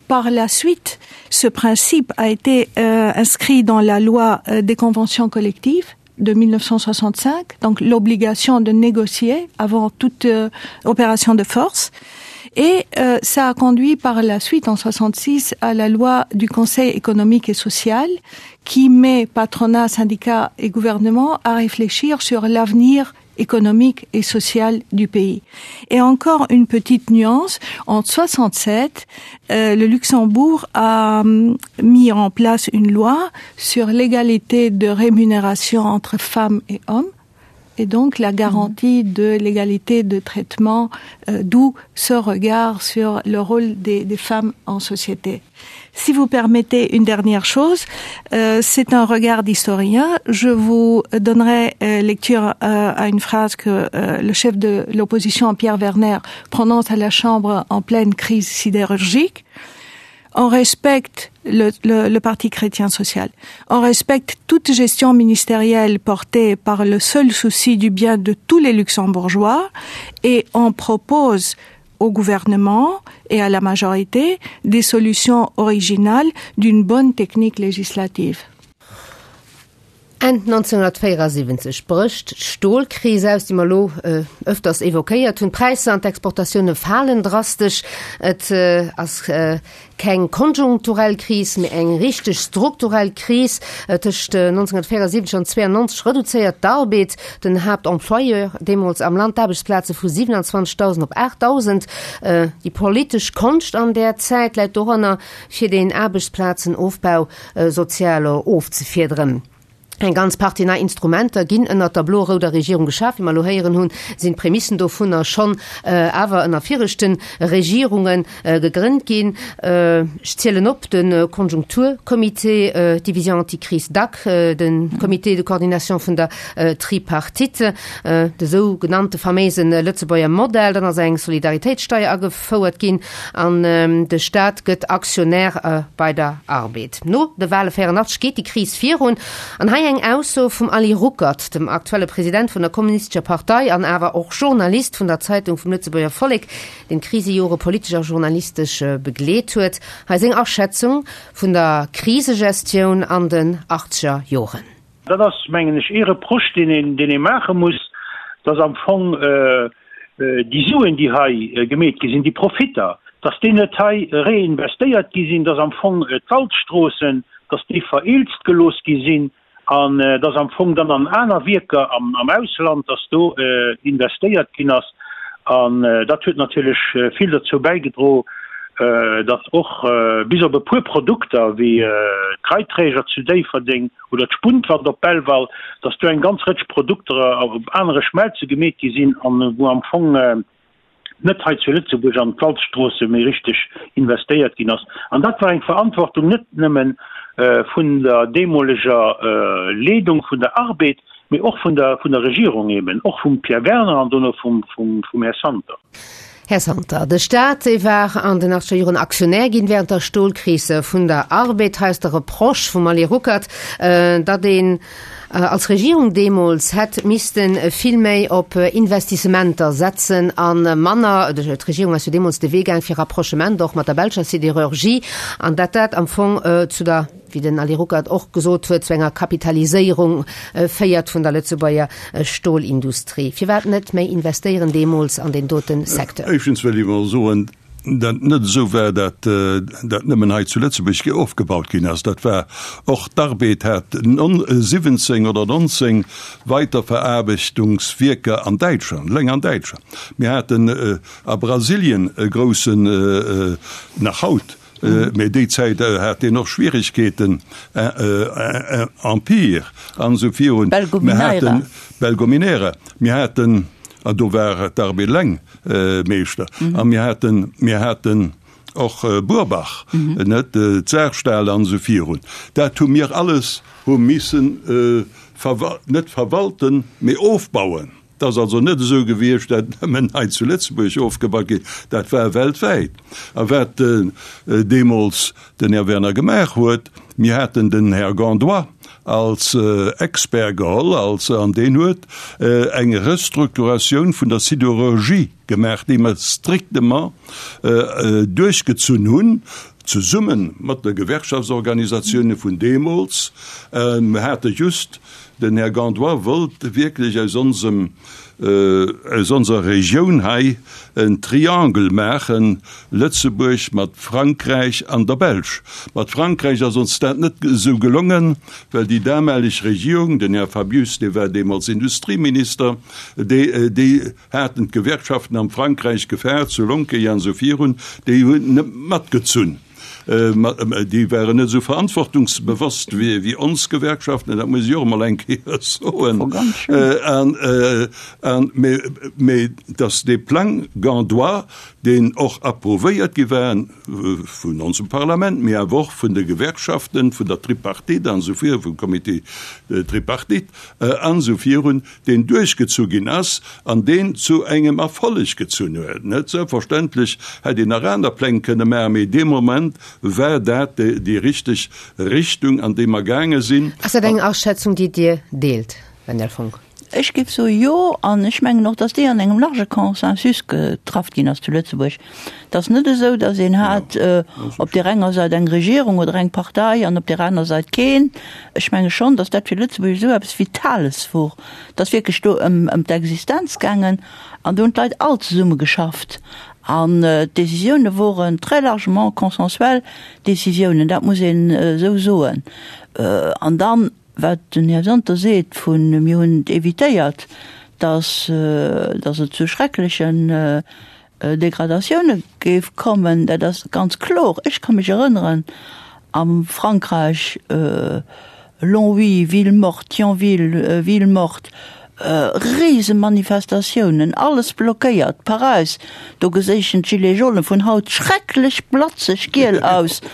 B: Par la suite, ce principe a été euh, inscrit dans la loi euh, des conventions collectives de 1965, donc l'obligation de négocier avant toute euh, opération de force. Et euh, ça a conduit par la suite en 66 à la loi du Conseil économique et social qui met patronat, syndicat et gouvernement à réfléchir sur l'avenir économique et social du pays. Et encore une petite nuance, en 67, euh, le Luxembourg a euh, mis en place une loi sur l'égalité de rémunération entre femmes et hommes et donc la garantie mmh. de l'égalité de traitement euh, d'où ce regard sur le rôle des, des femmes en société. Si vous permettez une dernière chose, euh, c'est un regard d'historien. Je vous donnerai euh, lecture euh, à une phrase que euh, le chef de l'opposition Pierre Werner prononce à la Chambre en pleine crise sidérurgique. On respecte le, le, le Parti chrétien social. On respecte toute gestion ministérielle portée par le seul souci du bien de tous les luxembourgeois et on propose au gouvernement et à la majorité des solutions originales d'une bonne technique législative.
A: Enn 1974 brécht d'Stolkris aus, déi mer elo ëfters evoquéiert hunn. D'Präisser an d'Exportatioune falen drastesch. Et ass keng konjunkturell Kris, mee eng richteg strukturell Kris. Tëscht 1974 an 1992 reduzéiert d'Arbed, den Haaptemployeur deemools am Land, d'Aarbechtsplaze vu 27.000 op 8.000. Déi politesch Konscht an där Zäit läit doranner, fir deen Aarbechtsplazenofbau sozial ofzefiederen. Eng ganz Partie nei Instrumenter ginn ënnert der blo-rouder Regierung geschaf. Wéi mer elo héieren hunn, sinn d'Prämissen dovunner schonn awer ënner viregte Regierunge gegrënnt ginn. Ech zielen op, de Konjunkturcomité, d'Division anticrise DAC, de Comité de coordination vun der Tripartite, de sou genannte faméise Lëtzebuerger Modell, dann ass eng Solidaritéitssteier agefouert ginn an de Staat gëtt Aktionär bei der Arbed. No de Wale 84 geet déi Kris virun. An hei eng Ausso vum Ali Ruckert, dem aktuelle President vun der Kommunistescher Partei an awer och Journalist vun der Zeitung vum Lëtzebuerger Vollek, deen d'Krisejore politesch a journalistesch begleet huet. Hei seng Aschätzung vun der Krisegestioun an den achtzeger Joren.
G: Dat ass, mengen ech, ee Reproche, deen een, deen ee maache muss, dass am Fong déi Suen, déi hei gemeet gi sinn, déi Profitter, dass déi net hei reinvestéiert gi sinn, dass am Fong d'Waldstroossen, dass déi vereelzt gelooss gi sinn an dass am Fong dann an aner Wierker am Ausland, dass do investéiert ginn ass. An dat huet natierlech vill dozou bäigedro, dass och bis op e puer Produkter wéi d'Reiträger zu Déifferdeng oder d'Spuntwand op Belval, dass do eng ganz Rëtsch Produkter op anere Schmelze gemeet gi sinn an wou am Fong net hei zu Lëtzebuerg an d'Walzstroosse méi richteg investéiert ginn ass. An dat war eng Verantwortung net nëmme vun der deemoleger Leedung vun der Arbed, mee och vun der vun der Regierung eben, och vum Pierre Werner an dono vum vum Här Santer.
A: Här Santer, de Staat, dee war an den achtzeger Joren Aktionär ginn während der Stolkris vun der Arbed. Hei ass de Reproche vum Ali Ruckert, datt een als Regierung deemools hätt misste vill méi op Investissementer setzen a manner, d'Regierung ass jo deemools de Wee gaang fir Rapprochement och mat der belscher Sidérurgie, an datt dat am Fong zu der, wéi den Ali Ruckert och gesot huet, zu enger Kapitaliséierung féiert vun der Lëtzebuerger Stolindustrie. Firwat net méi investéieren deemools an deen dote Secteur?
C: Éischtens wëll ech emol soen, dat net esou war, dat dat nëmmen hei zu Lëtzebuerg ofgebaut ginn ass. Dat war och, d'Arbed hat 17 oder 19 Weiterveraarbechtungswierker an Däitschland, eleng an Däitschland. Mir haten a Brasilien e groussen, nach haut, Mee déi Zäit hat deen och Schwierigkeeten, Empire an esou virun.
D: Belgominera.
C: Belgominera. Mir haten, an do war d'Arbed eleng Meeschter, a mir haten, mir haten och Burbach, net, d'Saarstahl an esou virun. Dat hu mir alles hu missen. net verwalten, mee ofbauen. Et ass also net esou gewiescht, dat nëmmen hei zu Lëtzebuerg ofgebaut ginn, dat war weltwäit. A wat deemools den Här Werner gemaach huet, mir haten den Här Gandois als Expert geholl, als, an deen huet eng Restrukturatioun vun der Sidérurgie gemaach, déi mer strictement duerchgezunn hunn, zesumme mat de Gewerkschaftsorganisatiounen vun deemools. Mir hate just Den Här Gandois wollt wierklech aus onsem, aus onser Regioun hei en Triangle maachen, Lëtzebuerg mat Frankräich an der Belsch. Mat Frankräich ass ons dat net esou gelongen, well déi damaleg Regierung, den Här Fabius, dee war deemools Industrieminister, déi, déi haten d'Gewerkschaften am Frankräich gefaart, zu Lonqueuil an esou virun, déi hunn net matgezunn. Déi waren net esou verantwortungsbewosst wéi ons Gewerkschaften, dat muss ech och emol eng Kéier soen. Mee datt dee Plang Gandois, deen och approuvéiert gi war vun onsem Parlament, mee awer och vun de Gewerkschaften, vun der Tripartite an esou virun, vum Comité tripartite an esou virun, deen duerchgezu ginn ass an deen zu engem Erfolleg gezunn huet. Net selbstverständlech hätt een nach aner Pläng kënne maachen, mee dee Moment war dat déi richteg Richtung, an déi mer gaange sinn.
A: Ass dat eng Aschätzung, déi Dir deelt, Wendel Fonck?
D: Ech géif soe jo, an ech mengen och, datt déi an engem large Consensus getraff ginn ass zu Lëtzebuerg. Et ass net esou, datt een hat op där enger Säit eng Regierung oder eng Partei an op där aner Säit keen. Ech menge schonn, datt dat fir Lëtzebuerg esou eppes Vitales wor. Et ass wierklech do ëm ëm d'Existenz gaangen an do hunn d'Leit all zesumme geschafft an d'Décisioune woren très largement consensuel Décisiounen, dat muss een esou soen. An dann, wat den Här Santer seet vun mir hunn et évitéiert, datt datt et zu schrecklechen Degradatioune géif kommen, dat ass ganz kloer. Ech ka mech erënneren, am Frankräich, Longwy, Ville morte, Thionville, Ville morte, Risemanifestatiounen, alles blockéiert, Paräis, do geséichen d'Gilets jaunes vun haut schrecklech blatzeg giel aus,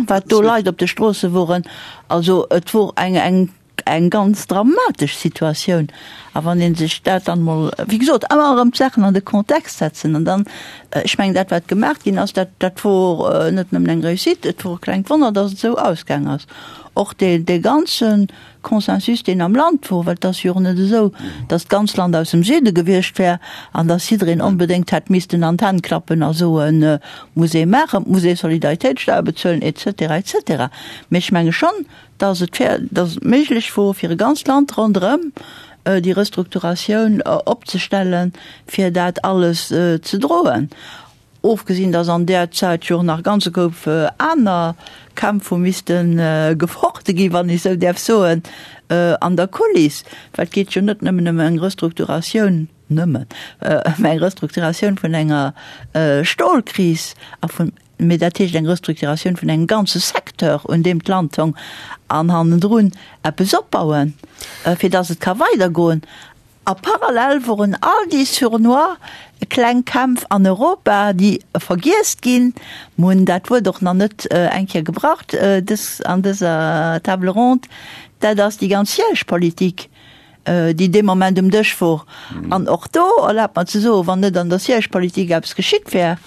D: wat do Leit op de Stroosse woren. Also et wor eng, eng Eng ganz dramatesch Situatioun. A wann ee sech dat dann emol, wéi gesot, ëmmer erëm d'Saachen an de Kontext setzen an dann, ech mengen, dat wat gemaach ginn ass, dat, dat wor net nëmmen eng Réussite, et wor e klengt Wonner, datt et esou ausgaang ass. Och dee, dee ganze Consensus, deen am Land wor, well et ass jo och net esou, datt d'ganz Land aus dem Süde gewiescht wär an datt jiddereen onbedéngt hätt missten an d'Hänn klappen a soen, muss ee maachen, et muss ee Solidaritéitssteuer bezuelen et cetera, et cetera. Mee ech menge schonn, dass et fair, dass et méiglech wor, fir e ganzt Land ronderëm déi Restrukturatioun opzestellen, fir dat alles ze droen. Ofgesinn, dass an där Zäit jo och nach e ganze Koup aner Kämpf hu misste gefochte ginn, wann ech esou däerf soen, an der Kuliss, well et geet jo net nëmmen ëm eng Restrukturatioun, nëmmen ëm eng Restrukturatioun vun enger Stolkris a vun Mee dat heescht eng Restrukturatioun vun engem ganze Secteur, un deem d'Land hong, an hannendrun eppes opbauen, fir datt et ka weidergoen. A parallel woren all déi sournois kleng Kämpf an Europa, déi vergiess ginn, mer hunn dat Wuert och nach net eng Kéier gebraucht dës, an dëser Table ronde, dat ass déi ganz Siège-Politik, déi dee Moment um Dësch wor. An och do, erlaabt mer ze soen, wann net an der Siège-Politik eppes geschitt wär,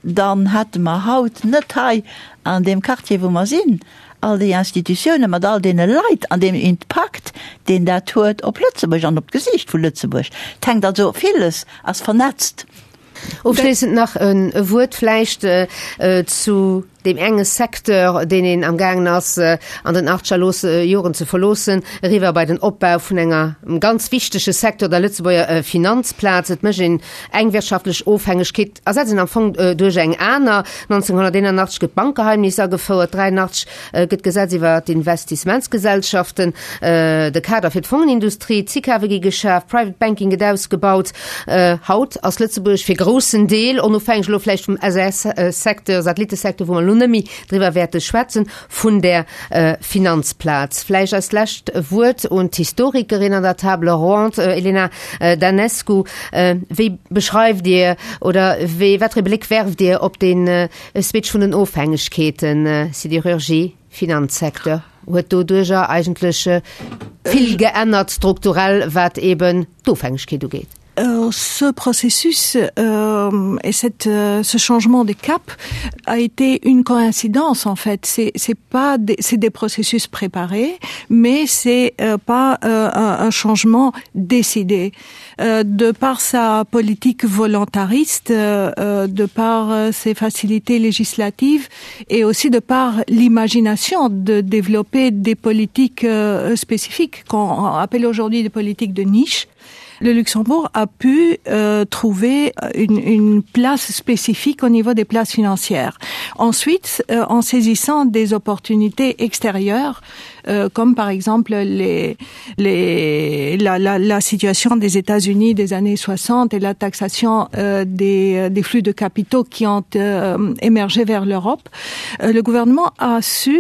D: dann hätte mer haut net hei an deem Quartier, wou mer sinn, all déi Institutiounen mat all deene Leit an deem Impakt, deen dat huet op Lëtzebuerg an op d'Gesiicht vu Lëtzebuerg. Et hänkt also, villes ass vernetzt.
A: Ofschléissend nach e Wuert vläicht zu deem enge Secteur, deen een am gaangen ass an den achtger Joren ze verloossen, eriwwer bei den Opbau vun enger ganz wichtege Secteur, der Lëtzebuerger Finanzplaz. Et mécht een eng wirtschaftlech Ofhängegkeet, ersetzt een am Fong duerch eng aner. 1981 gëtt d'Bankgeheimnis agefouert, 83 gëtt d'Gesetz iwwer d'Investissementsgesellschaften, de Kader fir d'Fongenindustrie, d'SICAVe gi geschaf, Private Banking gëtt ausgebaut. Haut ass Lëtzebuerg fir groussen Deel, onofhängeg elo vläicht vum SAS-Secteur, Satellitesecteur, wou mer elo net méi driwwer wäerte schwätzen, vun der Finanzplaz. Vläicht als lescht Wuert un d'Historikerin an der Table ronde, Elena Danescu, Wéi beschreift Dir oder wéi, wat fir ee Bléck werft Dir op dee Switch vun den Ofhängegkeeten, Sidérurgie, Finanzsecteur? huet doduerjer eigentlech vill geännert strukturell, wat eben d'Ofhängegkeet ugeet.
B: Euh, ce processus euh, et cette, euh, ce changement de cap a été une coïncidence en fait c'est c'est pas des, c'est des processus préparés mais c'est euh, pas euh, un, un changement décidé euh, de par sa politique volontariste euh, euh de par euh, ses facilités législatives et aussi de par l'imagination de développer des politiques euh, spécifiques qu'on appelle aujourd'hui des politiques de niche le Luxembourg a pu euh, trouver une, une place spécifique au niveau des places financières. Ensuite, euh, en saisissant des opportunités extérieures, euh, comme par exemple les, les, la, la, la situation des États-Unis des années 60 et la taxation euh, des, euh, des flux de capitaux qui ont euh, émergé vers l'Europe, euh, le gouvernement a su,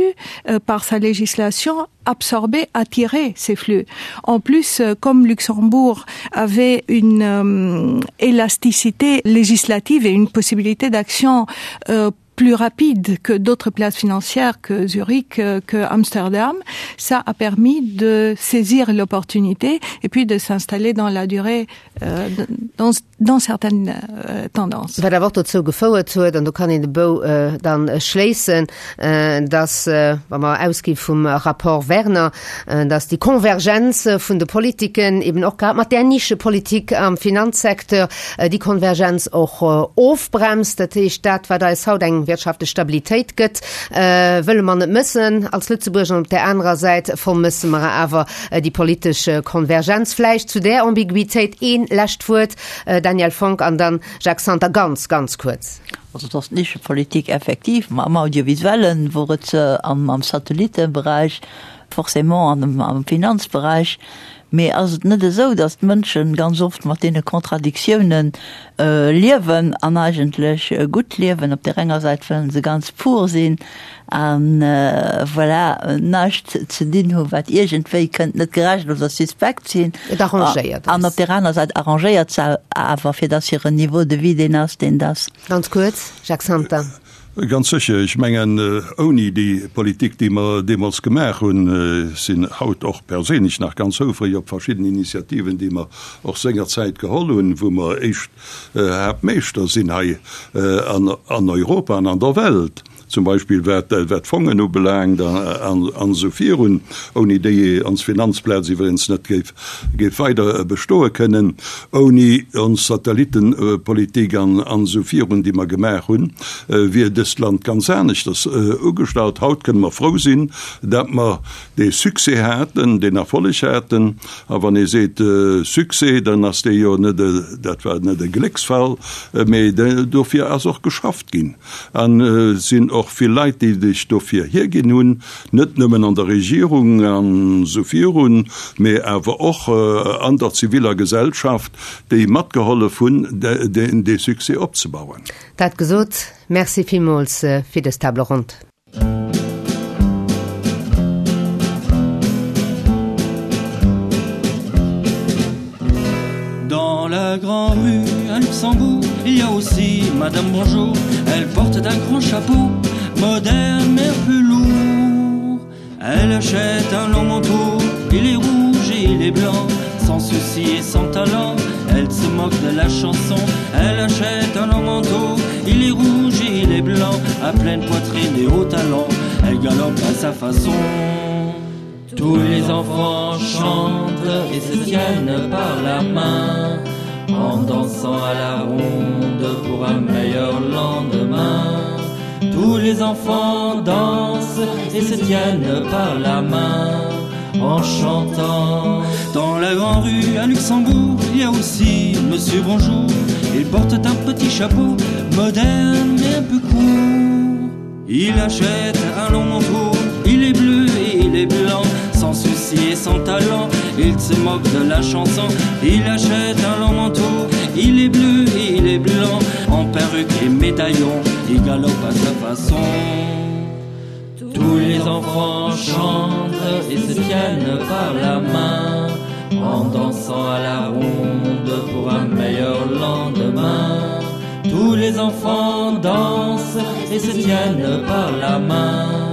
B: euh, par sa législation, absorber, attirer ces flux. En plus, euh, comme Luxembourg avait une euh, élasticité législative et une possibilité d'action euh, plus rapide que d'autres places financières que Zurich, euh, que Amsterdam, ça a permis de saisir l'opportunité et puis de s'installer dans la durée euh, dans, dans certaines euh, tendances.
A: Wat awer och dozou gefouert huet, an do kann een de Bou äh, dann schléissen, äh, dass, äh, wa mer ausgi vum Rapport Werner, äh, dass déi Konvergenz vun de Politiken eben och grad mat där Nischepolitik am Finanzsecteur déi Konvergenz och ofbremst. Dat heescht, dat, wat eis haut eng wirtschaftlech Stabilitéit gëtt, wëlle mer net mëssen als Lëtzebuerger. An op där anerer Säit vermësse mer awer déi politesch Konvergenz. Vläicht zu där Ambiguitéit ee lescht Wuert, Danièle Fonck, an dann Jacques Santer, ganz, ganz kuerz.
D: Also et ass d'Nischepolitik effektiv, ma am Audiovisuellen wor et se, am Satellitteberäich forcément, an am Finanzberäich. Mee ass et net esou, datt d'Mënschen ganz oft mat deene Contradictiounen liewen an eigentlech gutt liewen? Op där enger Säit wëllen se ganz pur sinn a voilà, näischt ze dinn hu wat iergendwéi kënnt net gerecht oder suspekt sinn.
A: Et arrangéiert
D: An op där aner Säit arrangéiert se awer, fir datt hiren Niveau de vie deen ass, deen et ass.
A: Ganz kuerz, Jacques Santer.
C: Ganz sécher. Ech mengen, ouni déi Politik, déi mer deemools gemaach hunn, sinn haut och perséinlech nach ganz houfreg op verschidden Initiativen, déi mer och sengerzäit geholl hunn, wou mer éischt Haaptmeeschter sinn hei an Europa an an der Welt, zum Beispill wat d'Fongen ubelaangt an esou virun, ouni déi ons Finanzplaz iwwregens net géif géif weider bestoe kënnen ouni ons Satellittenpolitik an esou virun, déi mer gemaach hunn, wier dëst Land ganz aneschters ugestallt. Haut kënne mer frou sinn, dat mer dee Succès haten, deen Erfolleg haten. A wann ee seet Succès, dann ass dee jo net, dat war net e Glécksfall, mee dofir ass och geschafft ginn. An et sinn och vill Leit, déi sech dofir hierginn hunn, net nëmmen an der Regierung an esou virun, mee awer och an der ziviller Gesellschaft, déi matgehollef hunn, dee Succès opzebauen.
A: Dat gesot, Merci villmools fir dës Table ronde.
H: Dans la grande rue à Luxembourg, il y a aussi Madame Bonjour. Elle porte un grand chapeau, moderne mais un peu lourd. Elle achète un long manteau, il est rouge et il est blanc, sans souci et sans talent. Elle se moque de la chanson, elle achète un long manteau, il est rouge et il est blanc, à pleine poitrine et haut talon, elle galope à sa façon. Tous les enfants chantent et se tiennent par la main en dansant à la ronde pour un meilleur lendemain. Tous les enfants dansent et se tiennent par la main en chantant. Dans la grande rue à Luxembourg, il y a aussi Monsieur Bonjour. Il porte un petit chapeau moderne mais un peu court. Il achète un long manteau, il est bleu et il est blanc, sans souci et sans talent, il se moque de la chanson. Il achète un long manteau, il est bleu et il est blanc, en perruque et médaillon, il galope à sa façon. Tous les enfants chantent et se tiennent par la main en dansant à la ronde pour un meilleur lendemain. Tous les enfants dansent et se tiennent par la main.